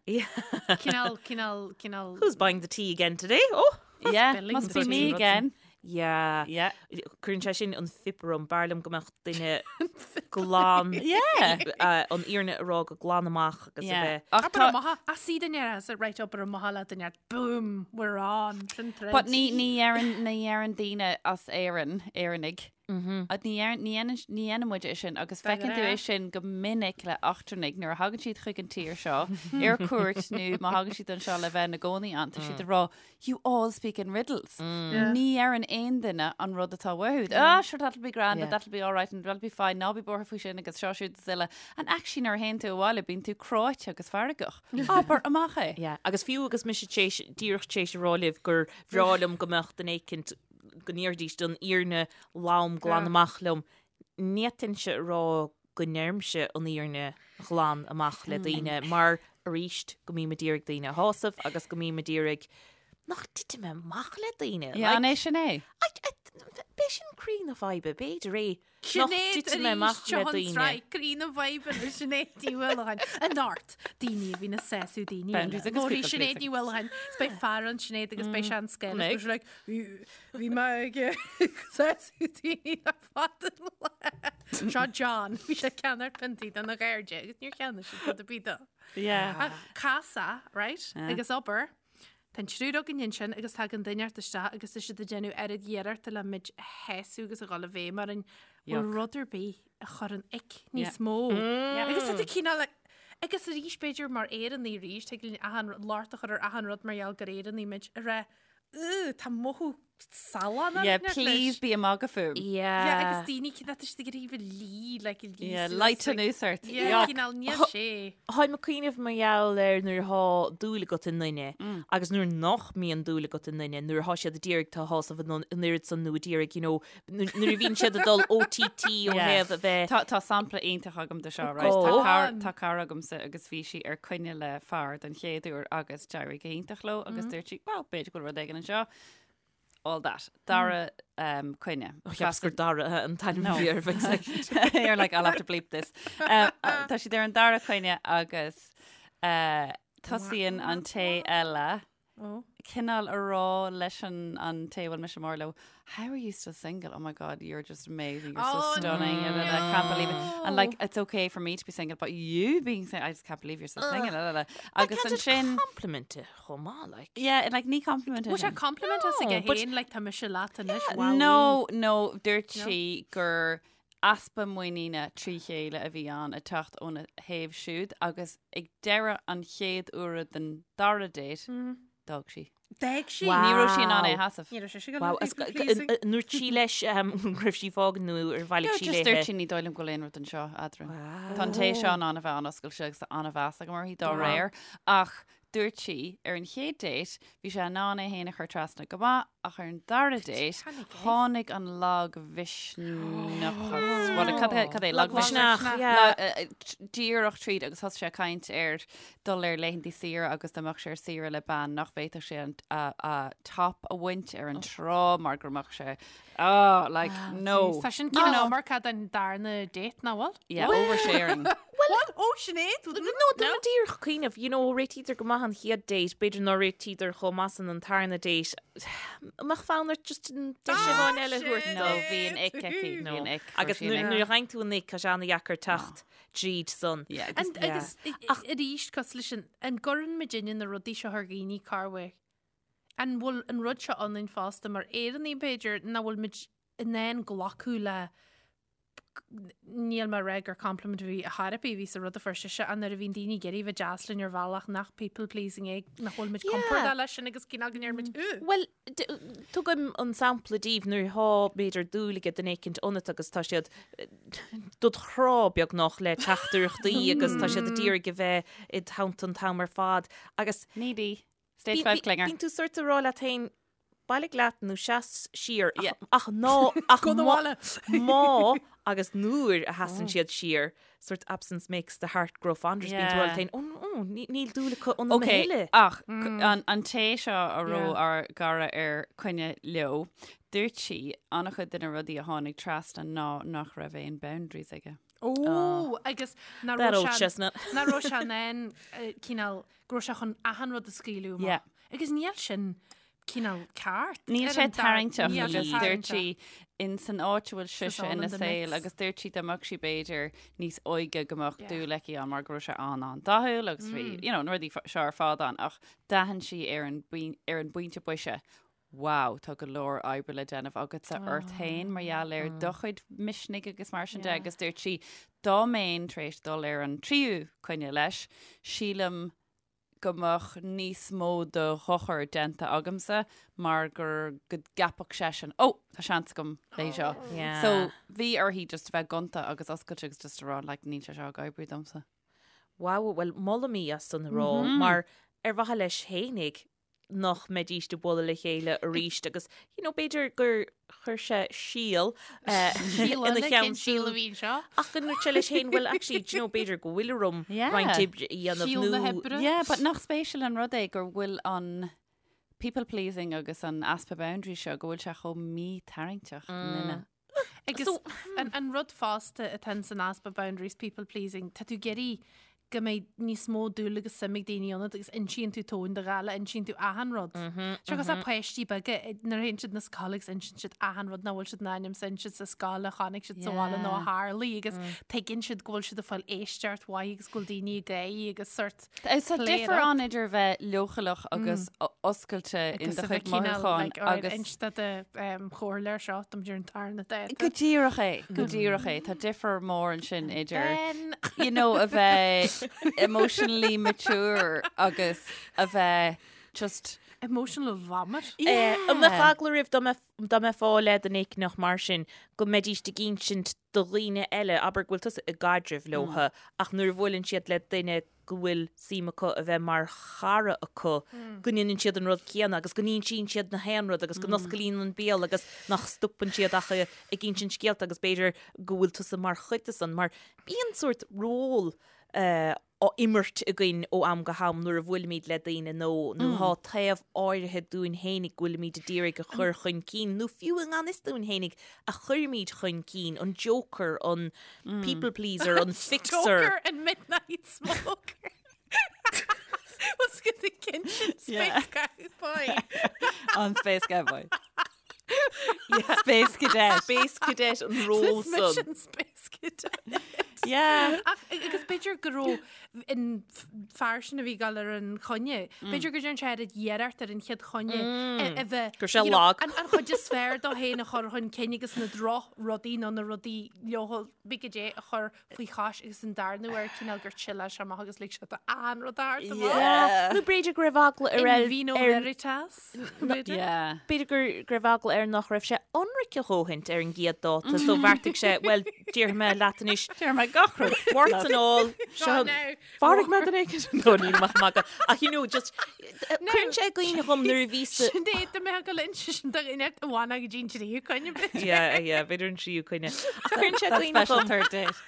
D: Yeah.
C: Cineál, cineál, cineál.
D: Who's buying the tea again today? Oh!
B: Yeah,
C: Spilling
B: must be
C: the
B: me
C: tea.
B: again.
D: Yeah.
B: Yeah.
D: Cuireann sé sin an fuip orm, b'fhearr liom go mbeadh duine glan
B: Yeah.
D: an fhírinne a rá go glan amach agus a
B: Yeah.
D: bheith.
B: Ach
C: Abair
B: tá-
C: amach, a sí duine as a right abair amach le duine, boom, we're on, sin troid.
B: But ní ní deireann ní deireann daoine as Éirinn, Éireannaigh. Ní deireann ní dhéanann ní dhéanann muid é sin agus feiceann tú é sin go minic le eachtrannaigh nuair a thagann siad chuig an tír seo ar cuairt nó má thagann siad anseo le bheith ina gcónaí ann tá siad ag rá you all speak in riddles. Ní deireann aon duine an rud atá uathu. Ah, sure, that'll be grand, and that'll be all right, and that'll be fine, ná bí buartha faoi sin agus seo siúd is uile. And actually nuair a théann tú abhaile bíonn tú cráite agus feargach. Abair amach é.
D: Yeah. Agus fiú agus mise tar éis díreach tar éis a rá libh gur bhreá liom go mbeadh duine éicint go ndéarfaidís an fhírinne lom glan amach liom, ní fhéadfainnse a rá go ndeirimse an fhírinne ghlan amach le daoine mar arís go mbím ag iarraidh daoine a shásamh agus go mbím ag iarraidh nach dtitfidh mé amach le daoine.
B: Yeah, an é sin é?
D: B'é sin croí na faidhbe, b'fhéidir é nach
C: Sinéad
D: dtitfidh mé
C: arís
D: amach le
C: seo an
D: daoine.
C: tsraith, croí na faidhbe le Sinéad Ní Mhaoileacháin. Anocht, daoine a bhíonn ag sásamh daoine eile.
B: Boundaries agus
C: Labharfaidh
B: people
C: Sinéad
B: pleasing.
C: Ní Mhaoileacháin, is beidh fear ann Sinéad agus beidh sé an scéal.
D: Mbeidh.
C: Is beidh sé like, bhí bhí mé ag sásamh daoine le fada an lá. Seo John, bhí sé ag ceannacht piontaí dona chairde agus níor cheannaigh siad rud ar bith dó.
B: Yeah.
C: Ach casadh, right? Agus obair. Tá an triúr againn ansin agus tagann duine inteacht isteach agus tá siad ag déanamh oiread iarrachta le muid a shásamh agus a dhul i bhfeidhm orainn. Bhfuil
B: Yuck.
C: rud ar bith a chuireann ick níos mó. Agus tá tú cineál like, agus arís b'fhéidir mar Éireannaigh arís, tig linn achan rud, locht a chur ar achan rud mar gheall gur Éireannaigh muid, a rá, "Ugh, tá mothú salán
B: Yeah, please bí ag magadh fúm.
C: Yeah. Yeah, agus daoine cinn atá siad ag iarraidh bheith lí, like, lí
B: Yeah,
C: suas,
B: light
C: like-
B: anuas ort.
C: Yeah,
B: Yuck.
C: cineál níl sé.
D: Tháim ag cuimhneamh mar gheall ar nuair atá dúil agat i nduine agus nuair nach mbíonn dúil agat i nduine, nuair atá siad ag iarraidh tú a shásamh an an oiread san nó ag iarraidh, you know, nuair nuair a bhíonn siad ag dul OTT ó
B: Yeah.
D: thaobh a bheith
B: Tá, tá sampla iontach agam de seo, right?
D: Go
B: Tá cara,
C: on.
B: tá cara agamsa agus bhí sí ar coinne le fear den chéad uair agus d'éirigh go hiontach leo agus dúirt sí, well, b'fhéidir go bhfuil rud éigin anseo. All that. Dara um, coinne.
D: Cheapas gur Dara an t-ainm
B: No.
D: a bhí air, bheinn like.
B: You're like, I'll have to bleep this. Um, uh, tá siad ar an dara coinne agus uh, tosaíonn an té eile
C: Oh.
B: cineál a rá leis an, an té a bhfuil mise mór leo, how are you still single? Oh my God, you're just amazing. You're so
C: Oh,
B: stunning. And I can't believe it. And like, it's okay for me to be single, but you being single, I just can't believe you're still single. La, la, la. Agus
D: Can't it
B: ansin,
D: compliment it chomh maith, like.
B: yeah, and like ní compliment
C: Bhfuil sé
B: sin.
C: compliment as
D: No,
C: aige
D: but-
C: féin, like tá mise leat anois, wow.
B: No, no, dúirt sí gur easpa muiníne trí chéile a bhí ann ag teacht óna thaobh siúd agus ag deireadh an chéad uaire den dara date, d'fhág sí.
C: D'fhág sí.
D: Wow.
B: Ní raibh sí in ann é a sheasamh.
C: Ní raibh sé go
D: Wow,
C: people
D: as-
C: pleasing.
D: an ndúirt sí leis go raibh sí ag fágaint nó ar bhailigh
B: No,
D: sí
B: just
D: léithe?
B: dúirt sí ní dóigh liom go bhfuil aon rud anseo eadrainn. Tá an té seo in ann a bheith an-oscailte agus tá an-mheas agam uirthi dá réir, ach dúirt sí ar an chéad date bhí sé in ann é féin a chur trasna go maith ach ar an dara date tháinig an lagmhisneachas. Bhuel, cad é- cad é
D: Lagmhisneach,
B: lagmhisneach?
D: yeah.
B: Díreach tríd agus thosaigh sé ag caint ar dul ar laethanta saoire agus dá mbeadh sé ar saoire le bean nach bhféadfadh sé an a top a bhaint ar an trá mar go mbeadh sé oh like no.
C: Tá sin cineál iomarca don darna date nach bhfuil?
B: Yeah, oversharing.
C: What? Ó Sinéad?
D: No, tá mé díreach ag cuimhneamh, you know, réitítear go maith an chéad date, b'fhéidir nár réitíodar chomh maith san an tarna date. Mbeadh fonn ort just an deis amháin eile a thabhairt
B: No, bhí an ick aici, bhí an ick.
D: Agus nuair a fhaigheann tú an ick, tá sé an-dheacair teacht tríd san.
B: Yeah, agus
C: And, agus arís cosúil leis sin, an gcuireann muidinne na rudaí seo ar dhaoine corruair? An bhfuil an rud seo ionainn fosta mar Éireannaigh b'fhéidir nach bhfuil muid in ann glacadh le níl mé ag rá gur compliment a bhí a therapy a bhí sa rud a fuair sise ach nuair a bhíonn daoine ag iarraidh bheith deas linn ar bhealach nach people pleasing é nach bhfuil muid compordach leis sin agus cineál go ndeir muid ugh.
D: Bhuel, tugaim an sampla daoibh nuair atá b'fhéidir dúil ag duine éicint ionat agus tá siad dod chrá beagnach le teachtaireachtaí agus tá siad ag iarraidh a bheith id theannta an t-am ar fad agus
B: Needy. Stage 5 clinger.
D: Bíonn tú sort ag rá leat féin bailigh leat nó seas siar ach,
B: Yeah.
D: ach ná ach
C: Go na
D: má-
C: bhaile.
D: má agus nuair a sheasann siad siar sort absence makes the heart grow fonder. Bíonn tú
B: Yeah.
D: rá leat féin, "Ó, ó, ní- níl dúil acu ionam a
B: Ok,
D: thuilleadh."
B: ach an, an té seo a raibh
C: Yeah.
B: ár gcara ar coinne leo, dúirt sí an-chuid de na rudaí a tháinig trasna ná nach raibh aon boundaries aige.
C: Ó, agus nach
D: That
C: raibh
D: old
C: sé-
D: chestnut.
C: nach raibh sé in ann eh, cineál go raibh sé chun achan rud a scaoileadh amach.
B: Yeah.
C: Agus níl sin cineál ceart.
B: Níl
C: ar
B: sé
C: an dar-
B: tarraingteach
C: Níl sé
B: agus dúirt
C: tarraingteach.
B: sí in san áit a bhfuil sise
C: all
B: ina
C: in the
B: saol
C: mix.
B: agus dúirt sí dá mbeadh sí b'fhéidir níos óige go mbeadh
C: Yeah.
B: dúil aici ann mar go raibh sé an-an-dathúil agus bhí you know, na rudaí seo ar fad ann ach d'aithin sí ar an bpoin- ar an bpointe boise Wow, tá go leor oibre le déanamh agatsa ort féin mar gheall ar do chuid misnigh agus mar sin de
C: Yeah.
B: agus dúirt sí dá mbeinn tar éis dul ar an tríú coinne leis, sílim go mbeadh níos mó de dhochar déanta agamsa mar gur go gceapfadh seisean, Ó, tá seans agam léi seo.
D: Yeah.
B: So bhí uirthi just a bheith gonta agus oscailte agus just a rá like, níl sé seo ag oibriú domsa.
D: Wow, well, molaim í as san a rá, mar ar mhaithe leis fhéinig nach mbeidís ag bualadh le chéile arís agus, you know, b'fhéidir gur chuir sé síol eh,
C: Síol
D: ina
C: eile,
D: cheann
C: cén síol a
D: siúd.
C: bhí anseo?
D: Ach go ndúirt sé leis féin, well, actually, do you know, b'fhéidir go bhfuil orm
B: Yeah.
D: roinnt oibre a dhéanamh
C: Síol na
D: nó
C: hoibre.
B: Yeah, but nach spéisiúil an rud é gur bhfuil an people pleasing agus an easpa boundary seo go bhfuil sé chomh mí-tarraingteach i nduine.
C: Agus
D: So-
C: an, an rud fosta atá san easpa boundaries people pleasing, tá tú ag iarraidh go mbeidh níos mó dúil agus suim ag daoine ionat agus insíonn tú tóin de ghála, insíonn tú achan rud. Seo cosúil le páistí beaga nuair a théann siad na scoile agus insíonn siad achan rud nach bhfuil siad in ainm is a inse sa scoil a chonaic siad sa bhaile nó a tharlaigh agus tuigeann siad go bhfuil siad ag fáil éisteacht mhaith agus go bhfuil daoine ag gáirí agus sort
B: Tá
C: play it
B: difear
C: up.
B: ann idir bheith leochaileach agus oscailte in
C: Agus
B: do
C: a bheith
B: chuid
C: cineál,
B: mothúchán
C: like, alright,
B: agus
C: inste do chomhairleoir seo dom ar an tarna dáta.
B: Go díreach é, go díreach é, tá difear mór ansin idir
C: Ben.
B: you know, a bheith emotionally mature agus a bheith just
C: Emotional vomit.
D: An mbeadh eagla oraibh dá mbeifeá le duine éicneach mar sin go mbeidíst ag insint do dhaoine eile, abair go bhfuil tusa i gcaidreamh leotha ach nuair a bhuaileann siad le duine go bhfuil suim acu a bheith mar chara acu, go ndéanann siad an rud céanna agus go n-insíonn siad na haon rud agus go n-osclaíonn an béal agus nach stopann siad ach ag insint scéalta agus b'fhéidir go bhfuil tusa mar chuid de san mar bíonn sórt ról á imirt againn ó am go ham nuair a bhuailimid le daoine nó nó thá taobh áirithe dúinn fhéinig go bhfuilimid a d'iarraidh a chur chun cinn nó fiú i ngan fhios dúinn fhéinig a chuirimid chun cinn, an joker, an people pleaser, an fixer.
C: Joker and midnight smoker. Was go the kinsin space cowboy.
B: An Space Cowboy. Space Cadet.
D: Space Cadet an ról san.
C: Mission Space Cadet.
B: Yeah.
C: Ach agus b'fhéidir go raibh an fear sin a bhí ag dul ar an choinne, b'fhéidir go dtearn sé oiread iarracht ar an chéad choinne a bheith
D: Go raibh sé
C: you know,
D: lag.
C: an an chuid is fearr dó féin a chur chun cinn agus na droch rudaí nó na rudaí leochaileacha a chur faoi chois agus an darna huair cineál gur chill-áil sé amach agus lig sé do an rud a thabhairt amach.
B: Yeah.
D: Nó b'fhéidir go raibh eagla ar
C: In
D: ar
C: vino
D: ar
C: veritas, b'fhéidir.
B: Yeah.
D: B'fhéidir gur go raibh eagla air nach raibh sé ionraic a dhóthaint ar an gcéad dáta so bheartaigh sé, bhuel, déarfaidh mé leat anois,
B: Déarfaidh mé gach rud.
D: warts and all, seo,
C: Go now.
D: mharaigh mé duine éicint. No, níl mé ag magadh. Ach you know, just, cuireann sé i gcuimhne dhom nuair a bhí sa...
C: Sin é, do mbeadh go linn sin do dhuine a bhain go dtí an tríú coinne b'fhéidir.
D: Yeah, yeah, b'fhéidir an tríú coinne. Ach cuireann sé i
B: That
D: gcuimhne
B: special
D: dhom,
B: third date.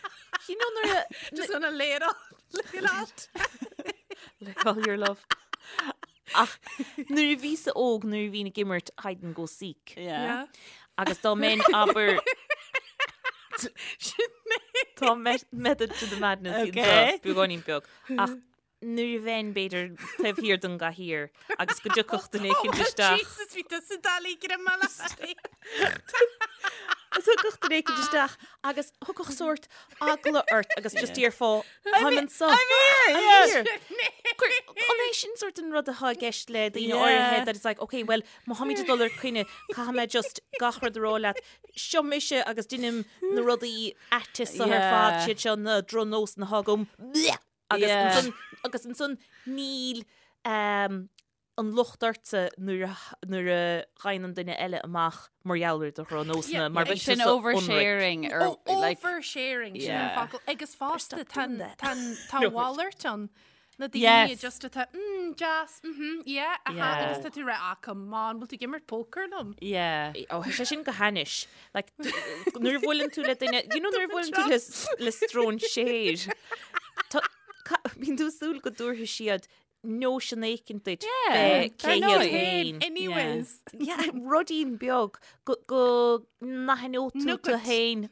D: you know nuair a...
C: Just gonna lay it all, lay it out.
D: Lay all your love. Ach nuair a bhíos-sa óg, nuair a bhínn ag imirt hide and go seek.
B: Yeah.
D: Agus dá mbeinn abair
C: Sin é.
D: Tá method to the madness
B: Okay.
D: anseo, beagáinín beag. Ach nuair a bheinn b'fhéidir taobh thiar den gcathaoir agus go dtiocfadh duine éicint isteach.
C: Jesus, bhí tusa doiligh grma le
D: Agus thiocfadh duine éicint isteach agus thiocfadh sórt eagla ort agus just déarfá táim anseo.
B: I'm here,
D: I'm
B: yeah.
D: here. An é sin sórt an rud atá i gceist le daoine
B: Yeah.
D: áirithe that it's like, okay, well, má tháimid ag dul ar coinne, caithfidh mé just gach rud a rá leat. Seo mise agus deinim na rudaí aite seo ar fad,
B: Yeah.
D: siad seo na drochnósanna atá agam. Bleh! Agus
B: Yeah.
D: ansan, agus ansan níl um, an locht ortsa nuair a, nuair a ghabhann an duine eile amach mar gheall ar do dhrochnósanna,
C: Yeah,
D: mar
C: yeah.
D: bheadh
B: Sin
D: tusa ionraic.
B: oversharing or
C: Oh,
B: like
C: oversharing, sin an
B: Yeah.
C: focal. Agus fosta
D: Stop doing
C: tá
D: that.
C: tá
D: No.
C: mhalairt ann. Na daoine
B: Yes.
C: just atá, mm, deas, mhm, yeah, aha,
B: Yeah.
C: agus tá tú ag rá, ah, come on, bhfuil tú ag imirt poker liom?
B: yeah.
D: Ó, tá sé sin go hainnis. Like, d- nuair a bhuaileann tú le duine, you know, nuair a bhuaileann tú le, le stróinséir, tá- ca- bíonn tú ag súil go dtabharfaidh siad nóisean éicint duit
B: Yeah,
D: fé
B: dar
D: cé
B: ndóigh.
D: hiad féin.
C: Anyways.
D: Yeah, ruidín beag go, go n-aithneodh tú tú
C: Nugget.
D: féin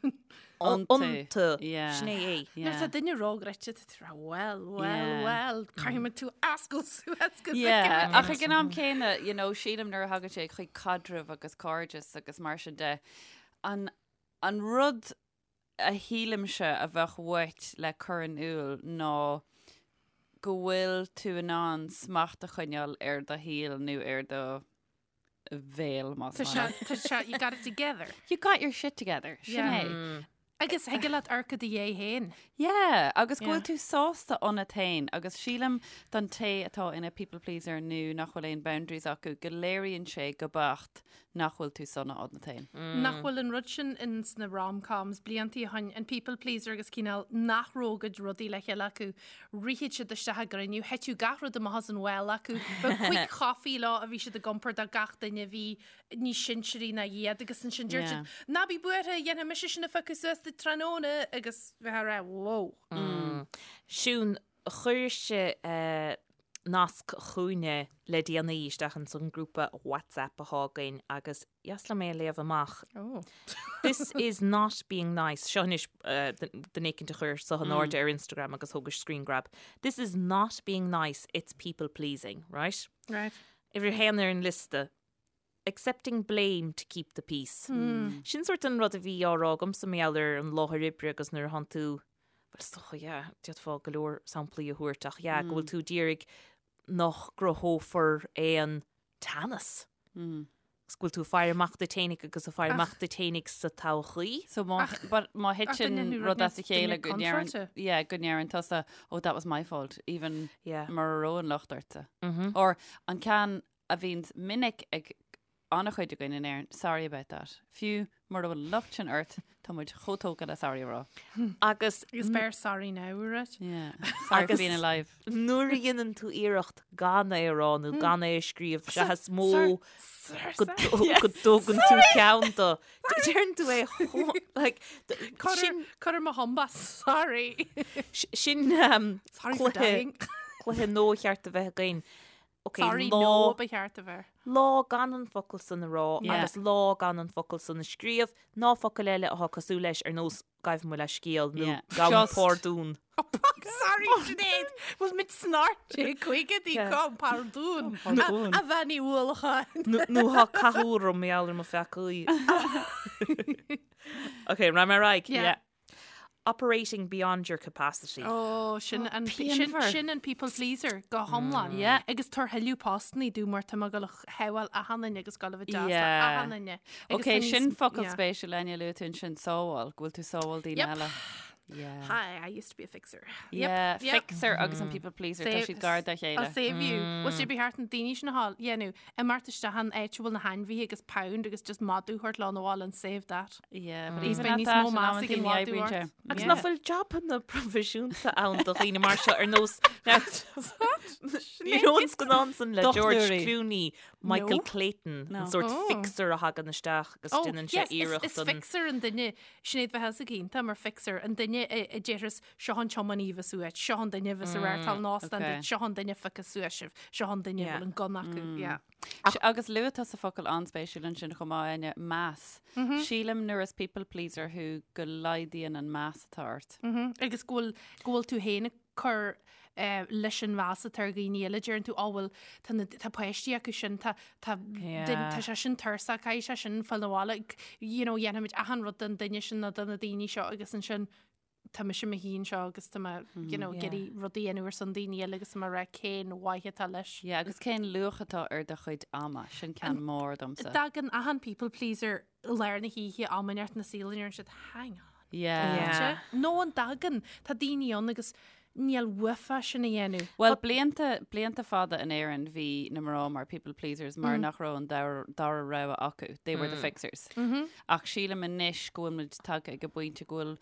B: Iontu.
D: iontu.
B: Yeah.
D: Sin é é.
C: Nuair tá
B: Yeah.
C: duine róghreoite tá tú ag rá, well, well,
B: Yeah.
C: well, caithfidh mé tú a oscailt suas go
B: Yeah,
C: bhfeicfidh mé.
B: ach ag an am céanna, you know, sílim nuair a thagann sé chuig caidreamh agus cairdeas agus mar sin de, an, an rud a shílimse a bheadh uait le cur in iúl ná go bhfuil tú in ann smacht a choinneáil ar do shaol nó ar do bhéal, más
C: Tá
B: maith
C: sé,
B: leat.
C: tá sé, you got it together.
B: You got your shit together, sin
C: Yeah.
B: é.
C: Agus thig leat amharc i do dhiaidh féin.
B: Yeah, agus go
C: Yeah.
B: bhfuil tú sásta ionat féin agus sílim don té atá ina people pleaser nó nach bhfuil aon boundaries acu go léiríonn sé go beacht nach bhfuil tú sona ionat féin.
C: Nach bhfuil an rud sin in sna rom-coms bliantaí ó shin, an people pleaser agus cineál nach raibh a gcuid rudaí le chéile acu, rithfeadh siad isteach i gcruinniú, thiteadh gach rud amach as an bhall acu, bheadh quick coffee leo a bhí siad ag iompar do gach duine a bhí níos sinsearaí ná iad agus ansin deir siad, ná bí buartha, dhéanfaidh mise sin a phiocadh suas duit tráthnóna agus bheifeá ag rá, whoa.
D: Siún, chuiris-se nasc chugainne le déanaí isteach ins an grúpa WhatsApp athá againn agus dheas liom é a léamh amach. This is not being nice. Seo anois duine éicint a chuir seo in airde ar Instagram agus thógais screen grab. This is not being nice, it's people pleasing, right?
C: Right.
D: Uimhir a haon ar an liosta. Accepting blame to keep the peace. Sin sórt an rud a bhí á rá agamsa mar gheall ar an láthair oibre agus nuair a thánn tú, bhuel is dócha, yeah, d'fhéadfá go leor samplaí a thabhairt ach yeah, go bhfuil tú ag iarraidh nach gcruthófar aon teannas. Agus go bhfuil tú ag faire amach duit fhéinig agus ag faire amach duit fhéinig sa todhchaí.
B: So má, but má thiteann
C: duine
B: rud as a
C: duine
B: chéile go ndeireann,
C: contráilte.
B: yeah, go ndeireann tusa, oh that was my fault, even
D: Yeah.
B: mura raibh an locht ortsa. Or an ceann. a bhíonns minic ag an-chuid againn in Éirinn, sorry about that. Fiú mura bhfuil an locht sin ort, tá muid chomh tógtha le sorry a rá.
D: Agus
C: Agus beir sorry now, right?
B: Yeah. Sorry for being alive.
D: Nuair a dhéanann tú iarracht gan é a rá nó gan é a scríobh, sea is mó go dtógann tú ceann de. Deireann tú é chomh, like,
C: sin... Cuir mo thumb as, sorry.
D: Sin
C: Sorry for dying.
D: cluiche nua cheart a bheith againn. Ok,
C: Sorry,
D: lá,
C: no ba cheart a bheith.
D: lá gan an focal san a rá
B: Yeah.
D: agus lá gan an focal san a scríobh, ná focail eile atá cosúil leis ar nós gabh mo leithscéal nó
B: Yeah.
D: gabh
B: Just.
D: pardún.
C: Sorry, Sinéad, bhfuil muid sna 1950idí
D: Yeah.
C: gabh pardún.
B: Pardún.
C: A Bhean Uí Uallacháin.
D: Nó nó thá cathú orm mar gheall ar mo pheacaí. Ok, rachaidh mé ar aghaidh.
C: Yeah.
D: Operating beyond your capacity.
C: Ó, sin an sin,
B: pianmhar.
C: sin an people pleaser go hiomlán.
B: Yeah.
C: Agus tabhair tuilleadh postannaí domh mar tá mé ag gabháil a shábháil achan duine agus gabháil a bheith deas le
B: Yeah.
C: achan duine. Agus
B: Ok,
C: tá níos-
B: sin focal
C: yeah.
B: spéisiúil Áine luaigh tú ansin sábháil, go bhfuil tú sábháil daoine
C: Yep.
B: eile. Yeah.
C: Hi, I used to be a fixer.
B: Yeah,
C: Yep.
B: fixer agus an people pleaser, tá
C: Save-
B: siad gar dá
C: I'll
B: chéile.
C: save you. Bhfuil sé ba cheart na daoine sin a fháil, dhéanamh, imeacht isteach an áit a bhfuil na hainmhithe agus pound agus just madadh a thabhairt leo 'na bhaile and save that.
B: Yeah, but
C: Níos
B: even
C: beidh
B: at
C: níos
B: that,
C: mó
B: in
C: meas
B: amantaí
C: ag an
B: ní
C: mhadadh
B: oibríonn
C: ort.
B: sé.
D: Agus
B: Yeah.
D: nach bhfuil jabanna proifisiúnta ann do dhaoine mar seo ar nós Ní raibh an scannán san le George
B: Dochtúirí.
D: Clooney, Michael
C: No.
D: Clayton,
B: No.
D: an sórt
C: Oh.
D: fixer a thagann isteach agus
C: Oh,
D: déanann sé
C: yes, is,
D: iarracht
C: is
D: an
C: fixer an duine Sinéad bheith sa gcinnte mar fixer an duine a déarfas seo an tiománaí a bheas uait, seo an duine a bheas ag reáchtáil an óstán
B: okay.
C: duit, seo an duine a phiocfas suas sibh, seo an duine a
D: Yeah.
C: bhfuil an gunna acu. Yeah.
B: Agus luaigh tusa focal an-spéisiúil ansin chomh maith, Áine, meas. Sílim nuair is people pleaser thú go laghdaíonn an meas atá ort.
C: Agus go bhfuil go bhfuil tú féin ag cur leis an mheas atá ar dhaoine eile, deireann tú, á bhuel, tá na, tá páistí acu sin, tá, tá,
D: Yeah.
C: duine, tá sé sin tuirseach, caithfidh sé sin fáil 'na bhaile, you know, dhéanfaimid achan rud don duine sin nó do na daoine seo agus ansin tá mise i mo shuí anseo agus tá mé, you know,
D: Yeah.
C: ag iarraidh rudaí a dhéanamh ar son daoine eile agus tá mé ag rá cén mhaith atá leis.
B: Yeah, agus cén luach atá ar do chuid ama, sin ceann mór domsa.
C: Tagann achan people pleaser i lár na hoíche am inteacht ina saol a ndeireann siad, hang on.
B: Yeah.
D: Yeah.
C: Nó an dtagann, tá daoine ann agus níl uafa sin a dhéanamh.
B: Bhuel, blianta, blianta fada in Éirinn bhí na mná mar people pleasers mar nach raibh an dara, dara rogha acu. They were the fixers. Ach sílim anois go bhfuil muid tagtha ag an bpointe go bhfuil,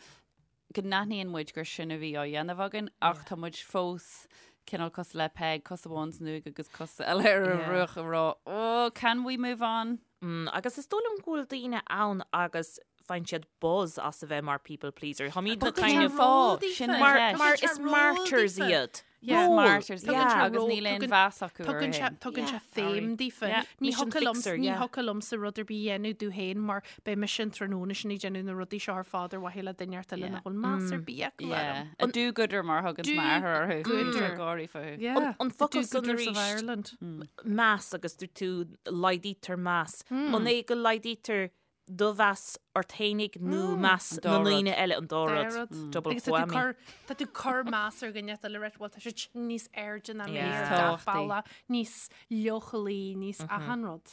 B: go n-aithníonn muid gur sin a bhí á dhéanamh againn ach tá muid fós cineál cosúil le Peig, cos amháin san uaigh agus cos eile ar an
D: Yeah.
B: bhruach ag rá, oh, can we move on?
D: Mm, agus is dóigh liom go bhfuil daoine ann agus faigheann siad buzz as a bheith mar people pleaser. Táimid na
C: Tugann
D: kind
C: sé
D: of
C: ról daofa.
B: Sin an
D: mar,
B: cheist.
D: mar
C: Tugann sé
D: is
C: ról
D: martyrs
C: daofa.
D: iad.
C: Yeah.
D: Ról.
B: Martyrs,
C: Tugann
B: yeah.
C: sé
B: Agus
C: ról-
B: níl aon
C: tugann-
B: mheas acu
C: Tugann sé
B: orthu.
C: tugann sé
D: Yeah.
C: féim daofa.
B: Yeah.
C: Ní
D: Mission
C: thiocfadh liom
D: fixer,
C: ní
D: yeah.
C: thiocfadh liomsa rud ar bith a dhéanamh domh féin mar beidh mise an tráthnóna sin ag déanamh na rudaí seo ar fad ar mhaithe le duine inteacht eile
B: Yeah.
C: nach bhfuil meas ar bith acu
B: Yeah.
C: orm.
B: A do-gooder mar thugann m'athair orthu.
C: Do-gooder.
B: Bíonn sé gáirí fúthu.
C: Yeah.
D: An- an
C: The
D: focal san
C: do-gooders of
D: arís.
C: Ireland.
D: Meas agus dúirt tú laghdaítear meas. An é go laghdaítear do mheas ort fhéinig nó meas
B: An dá
D: na
B: rud.
D: ndaoine eile an dá
C: Dá
D: rud.
C: rud.
D: Double
C: Agus tá tú
D: whammy.
C: cur- tá tú cur meas ar dhuine eile right, bhuel tá siad sin níos airde ná mé
D: Yeah.
C: ar
B: Níos
C: gach
B: tábhachtaí.
C: bealach, níos leochailí, níos achan rud.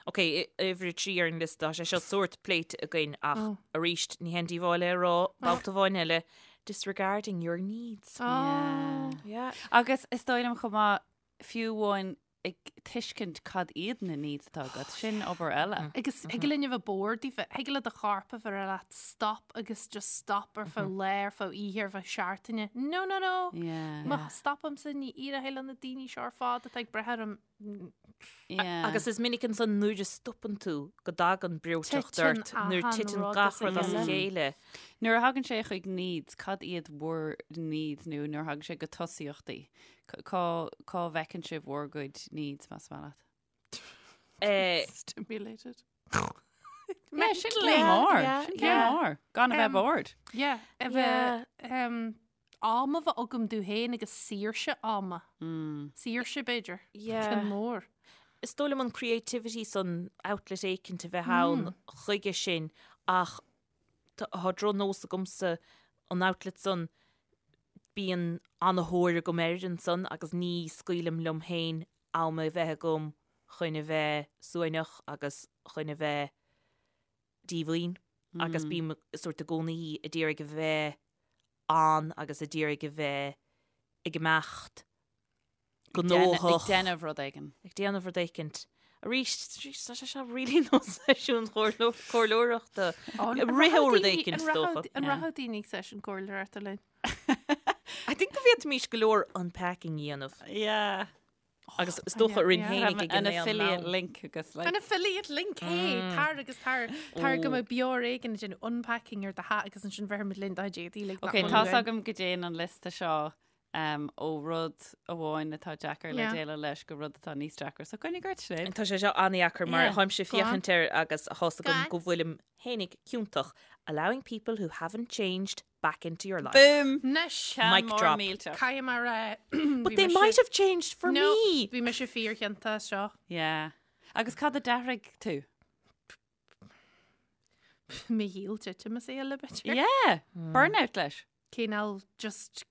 D: Ok, uimhir a 3 ar an liosta, tá sé seo sórt pléite againn ach
C: Oh.
D: arís ní haon díobháil é a rá, babhta amháin eile, disregarding your needs.
C: Oh.
D: Yeah.
B: Agus is dóigh liom chomh maith fiú amháin ag tuiscint cad iad na needs atá agat, sin obair eile.
C: Agus thig linn a bheith bored daofa, thig le do chorp a bheith ag rá leat stop agus just stop ar feadh lae, ar feadh oíche, ar feadh seachtaine. No, no, no!
B: Yeah.
C: Má stopaimse ní éireoidh le na daoine seo ar fad atá ag brath orm.
B: Yeah.
D: Agus is minic ansan nuair a stopann tú go dtagann breoiteacht
C: Titeann
D: ort, nuair
C: achan
D: titeann
C: rud
D: gach
C: as a
D: rud as a
C: chéile.
D: chéile.
B: Nuair a thagann sé chuig needs, cad iad bhur needs nó nuair a thagann sé go tosaíochtaí? Cá cá bhfeiceann sibh bhur gcuid needs más maith leat?
D: Eh,
C: Stimulated.
B: Yeah, sin
C: Mentally.
B: céim mór.
D: yeah,
B: Sin céim
C: yeah.
B: mór. Gan a bheith bored.
C: Yeah, a bheith um, am a bheith agam domh féin agus saoirse ama. Saoirse b'fhéidir.
D: Yeah.
C: Ceann mór.
D: Is dóigh liom an creativity san outlet éicint a bheith ann chuige sin ach tá drochnós agamsa an outlet san bíonn an-thóir agam air ansan agus ní scaoilim liom féin am a bheith agam chun a bheith suaimhneach agus chun a bheith díomhaoin agus bím sórt i gcónaí a d'iarraidh a bheith ann agus a d'iarraidh a bheith ag imeacht. gnóthach.
B: Ag déanamh rud éigin.
D: Ag déanamh rud éicint. Arís, tá sé seo really nós seisiún comhairleoireachta. Rith ó rud éicint, is dócha.
C: An rachadh daoine ag seisiún comhairleoireachta linn?
D: I think go bhféadfaimis go leor unpacking a dhéanamh.
B: Yeah.
D: Agus is dócha orainn féinig ag
B: an affiliate link agus
C: like. An affiliate link, hey, tar agus tar, tar go mbeidh beár éigin ag déanamh unpacking ar do theach agus ansin bheirfimid linn do chuid éadaí like
B: Ok, tá's agam go dtéann an liosta seo um, ó rud amháin atá deacair le déileáil leis go rud atá níos deacra. So coinnigh ort, Sinéad.
D: Tá sé seo an-deacair mar tháimse ag féachaint air agus tá's agam go bhfuilim fhéinig ciontach. Allowing people who haven't changed back into your life.
B: Boom!
C: Anois,
D: Mic drop.
C: Caithfidh mé a rá.
D: But they might have changed for me!
C: Bhí mise fíorchiontach as seo.
B: Yeah. Agus cad a d'athraigh tú?
C: Mo shaol titim as a chéile b'fhéidir.
B: Yeah! Burnout leis.
C: Cineál just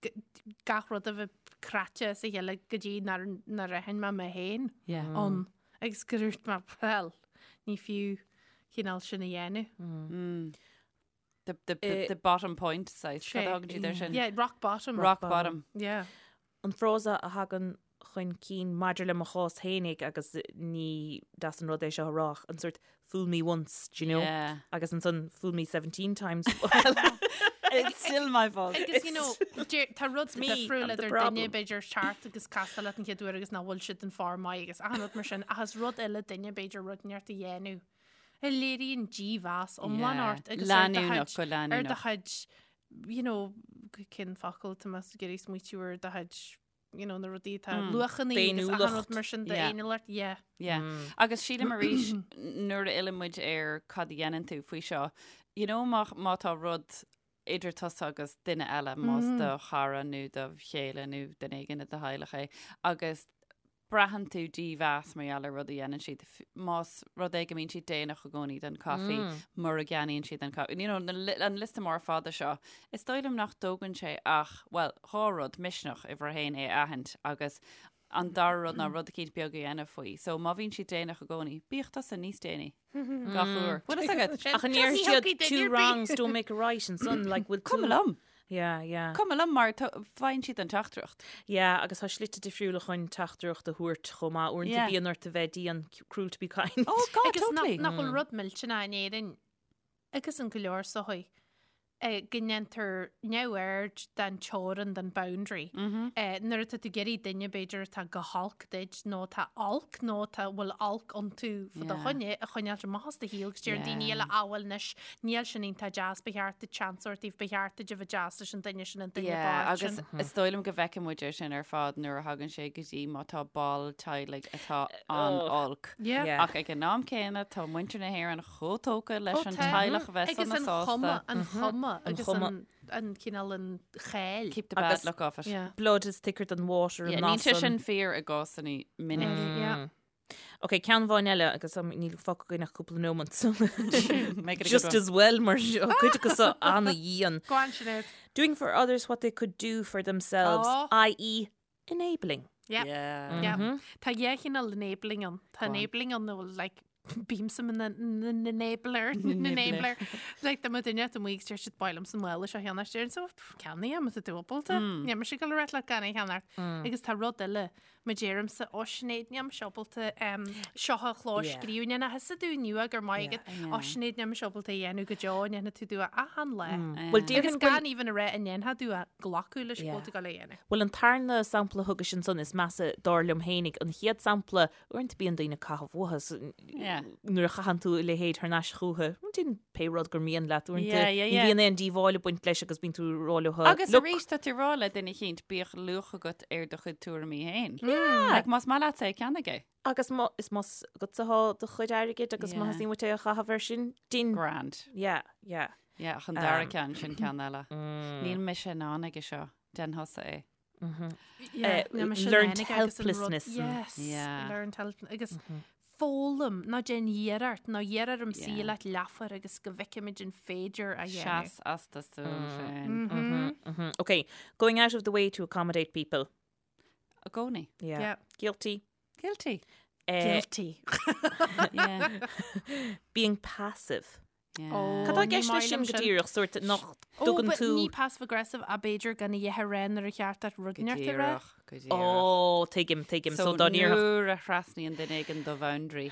C: gach rud a bheith cráite as a chéile go dtí nár nár aithin mé mé féin ann. Agus gur dhúirt mé, well, ní fiú cineál sin a dhéanamh.
B: The, the, the, the bottom point saghas. Cad a thugann siad air sin?
C: Yeah, rock bottom.
B: Rock bottom.
C: Yeah.
D: An frása a thagann chun cinn maidir le mo chás fhéinig agus ní deas an rud é seo a rá ach an sort fool me once, do you know?
B: Yeah.
D: Agus ansan fool me 17 times.
B: It's still my fault.
C: Agus, you know, tá rud
D: me,
C: difriúil
D: I'm the
C: idir
D: problem.
C: duine b'fhéidir teacht agus castáil leat an chéad uair agus nach bhfuil siad in form maith agus achan rud mar sin ach is rud eile duine b'fhéidir rud inteacht a dhéanamh. a léiríonn dímheas iomlán ort agus ar do
B: Leanúnach,
C: chuid,
B: go
C: ar do
B: leanúnach.
C: chuid, you know, cén focal tá mé ag iarraidh smaoitiú ar do chuid, you know, na rudaí atá luachanna agus achan rud mar sin
B: Yeah.
C: d'fhéiniúlacht, yeah.
B: Yeah. Agus sílim arís nuair a fhilleann muid ar cad a dhéanann tú faoi seo, you know, má, má tá rud idir tusa agus duine eile, más do chara nó do chéile nó duine éigin i do theaghlach é, agus braitheann tú dímheas mar gheall ar rud a dhéanann siad, más rud é go mbíonn siad déanach i gcónaí don caife, mura gceannaíonn siad an caife. You know, an liosta mór fada seo, is dóigh liom nach dtógann sé ach, bhuel, dhá rud, misneach, uimhir a haon, é a aithint agus an dara rud ná rud eicínt beag a dhéanamh faoi. So má bhíonn siad déanach i gcónaí, bíodh tusa níos déanaí. Gach uair. Bhfuil fhios agat?
D: Ach an ndéarfaidh siad two wrongs don't make a right ansan, like, bhfuil tú...
B: Cuma liom.
D: Yeah, yeah.
B: Cuma liom mar faigheann siad an teachtaireacht.
D: Yeah, agus tá slite difriúla chun teachtaireacht a thabhairt chomh maith. Uaireanta
B: Yeah.
D: bíonn ort a bheith dian, cruel to be kind.
B: Oh God,
C: Agus nach
B: totally.
C: nach bhfuil rud millteanach in Éirinn agus in go leor sochaí go ndéantar neamhaird den teorainn, den boundary. Nuair atá tú ag iarraidh duine b'fhéidir atá go holc duit nó atá olc nó atá bhfuil olc iontu fá do choinne a choinneáilt amach as do shaol agus deir daoine eile ah bhuel anois níl sin iontach deas ba cheart duit seans a thabhairt dóibh ba cheart duit a bheith deas leis an duine sin an duine
B: Yeah,
C: bocht
B: agus
C: sin.
B: is dóigh liom go bhfeiceann muid é sin ar fad nuair a thagann sé go dtí má tá ball teaghlaigh atá an-olc.
C: Yeah.
D: Yeah.
B: Ach ag an am céanna tá muintir na hÉireann chomh tógtha leis
C: Ó
B: an
C: tá.
B: teaghlach a bheith
C: Agus
B: sona
C: an
B: sásta.
C: chuma, an chuma agus
D: chuma.
C: an, an cineál an cháil.
B: Keep the bad
D: Agus-
B: look off it.
C: Yeah.
D: Blood is thicker than water
B: Yeah,
D: an
B: níl sé
D: nasan.
B: sin fíor i gcásanna minic.
C: Yeah.
D: Ok, ceann amháin eile agus um, níl fágtha againn ach cúpla nóiméad. so
B: Make it a good
D: Just
B: one.
D: as well mar seo cuid acu seo an-dhian.
C: Go on, Sinéad.
D: Doing for others what they could do for themselves,
C: Oh.
D: i.e. enabling.
C: Yeah.
B: Yeah.
C: Yeah. Tá dhá chineál enabling ann. Tá
B: Go on.
C: enabling ann nó like bímse ina n-enabler, n-enabler. Like dá mbeadh duine amuigh agus deir siad ba mhaith liomsa an mála seo a cheannacht déarfainn so ceannaigh é má tá tú ábalta. Níl mise ag dul a rá leat gan é a cheannacht. Agus tá rud eile má deirimse ó Sinéad níl mise ábalta seo a chlóscríobh ní nach thusa tú inniu gur maith agat ó Sinéad níl mise ábalta a dhéanamh go deo an ndéanfaidh tú tú é achan lá.
D: Bhuel
C: Agus
D: déarfainn go bhfuil
C: gan even a rá an ndéanfaidh tú é glacadh leis go bhfuil tú ag dul é a dhéanamh.
D: Bhuel an tarna sampla a thugais ansan is measa dar liom fhéinig an chéad sampla Uaireanta bíonn daoine ag caitheamh uathu so nuair a chaitheann tú a leithéid thar n-ais chucu, déan pé rud gur mian leat uaireanta ní bhíonn aon díobháil ag baint leis agus bíonn tú ag rá leo
B: Agus
D: look.
B: arís tá tú ag rá le duine eicínt bíodh luach agat ar do chuid tuairimí féin. Like más maith leatsa é ceannaigh é.
D: Agus má is más agatsa atá do chuid airgid agus má
B: Yeah.
D: theastaíonn uait é a chaitheamh air sin, déan.
B: Grand.
D: Yeah, yeah.
B: Yeah, ach an dara ceann sin ceann eile. Níl mise in ann aige seo, déan thusa é.
D: Learned helplessness.
C: Yes,
B: Yeah.
C: learned helplessness. Agus foghlaim ná déan iarracht, ná iarr orm suí leat leathuair agus go bhfeicfimid an féidir a dhéanamh.
B: Seas as do stuaim féin.
D: Okay, going out of the way to accommodate people.
B: I gcónaí.
D: Yeah.
C: Yeah.
D: Guilty.
B: Guilty.
D: Eh,
C: Guilty.
B: Yeah.
D: Being passive. Cad tá i gceist leis sin go díreach, sórt nach dtugann tú.
C: Ní passive aggressive ach b'fhéidir gan a dhath a rá nuair a cheart duit rud inteacht a rá.
B: Go díreach.
D: Ó, tuigim, tuigim.
B: So dá ndéarfadh. Nuair a thrasnaíonn duine éigin do bhoundary,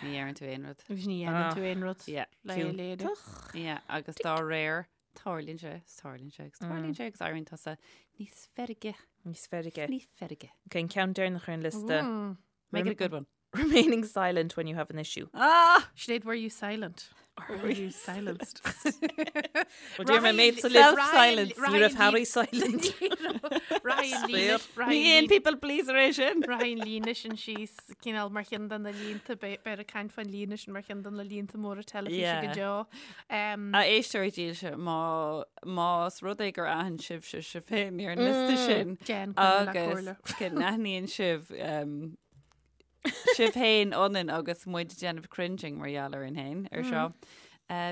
B: ní deireann tú aon rud.
C: Agus ní dhéanann tú aon rud.
B: Yeah.
C: Le é a léiriú.
B: Yeah, agus dá réir, tarlaíonn sé, tarlaíonn sé, agus tarlaíonn sé agus éiríonn tusa níos feirge.
D: Níos feirge.
B: Níos feirge.
D: Ok, an ceann deireanach ar an liosta.
B: Make it a good one.
D: Remaining silent when you have an issue.
B: Ah!
C: Sinéad, were you silent? Or were you silenced?
D: Well, dear, my mate's a little
B: Self-silence.
D: Ní raibh Harry silent.
B: Ní aon people pleaser é sin.
C: Rachaidh an líne sin síos cineál mar cheann de na línte, beifear ag caint fán líne sin mar cheann de na línte móra teilifíse go deo.
B: A éisteoirí dílse, má más rud é gur aithin sibhse sibh féin ar an liosta sin
C: Déan coinne le comhairle.
B: agus go n-aithníonn sibh sibh féin ionainn agus muid ag déanamh cringing mar gheall orainn féin ar seo.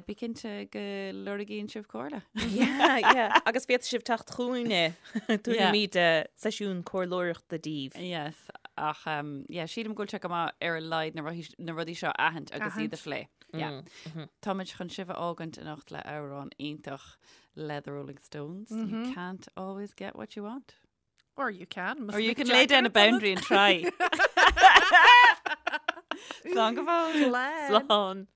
B: Bí cinnte go lorgaíonn sibh comhairle.
D: Yeah, yeah. Agus féadfaidh sibh teacht chugainne. Tabharfaimid seisiún comhairleoireachta daoibh.
B: Yes, ach um, yeah, sílim go bhfuil sé go maith ar a laghad na rudaí- na rudaí seo a aithint agus iad a phlé. Yeah. Táimid chun sibh a fhágaint anocht le amhrán iontach le The Rolling Stones. You can't always get what you want.
C: Or you can.
B: Or you can lay down a boundary and try. Slán go fóill.
D: Slán.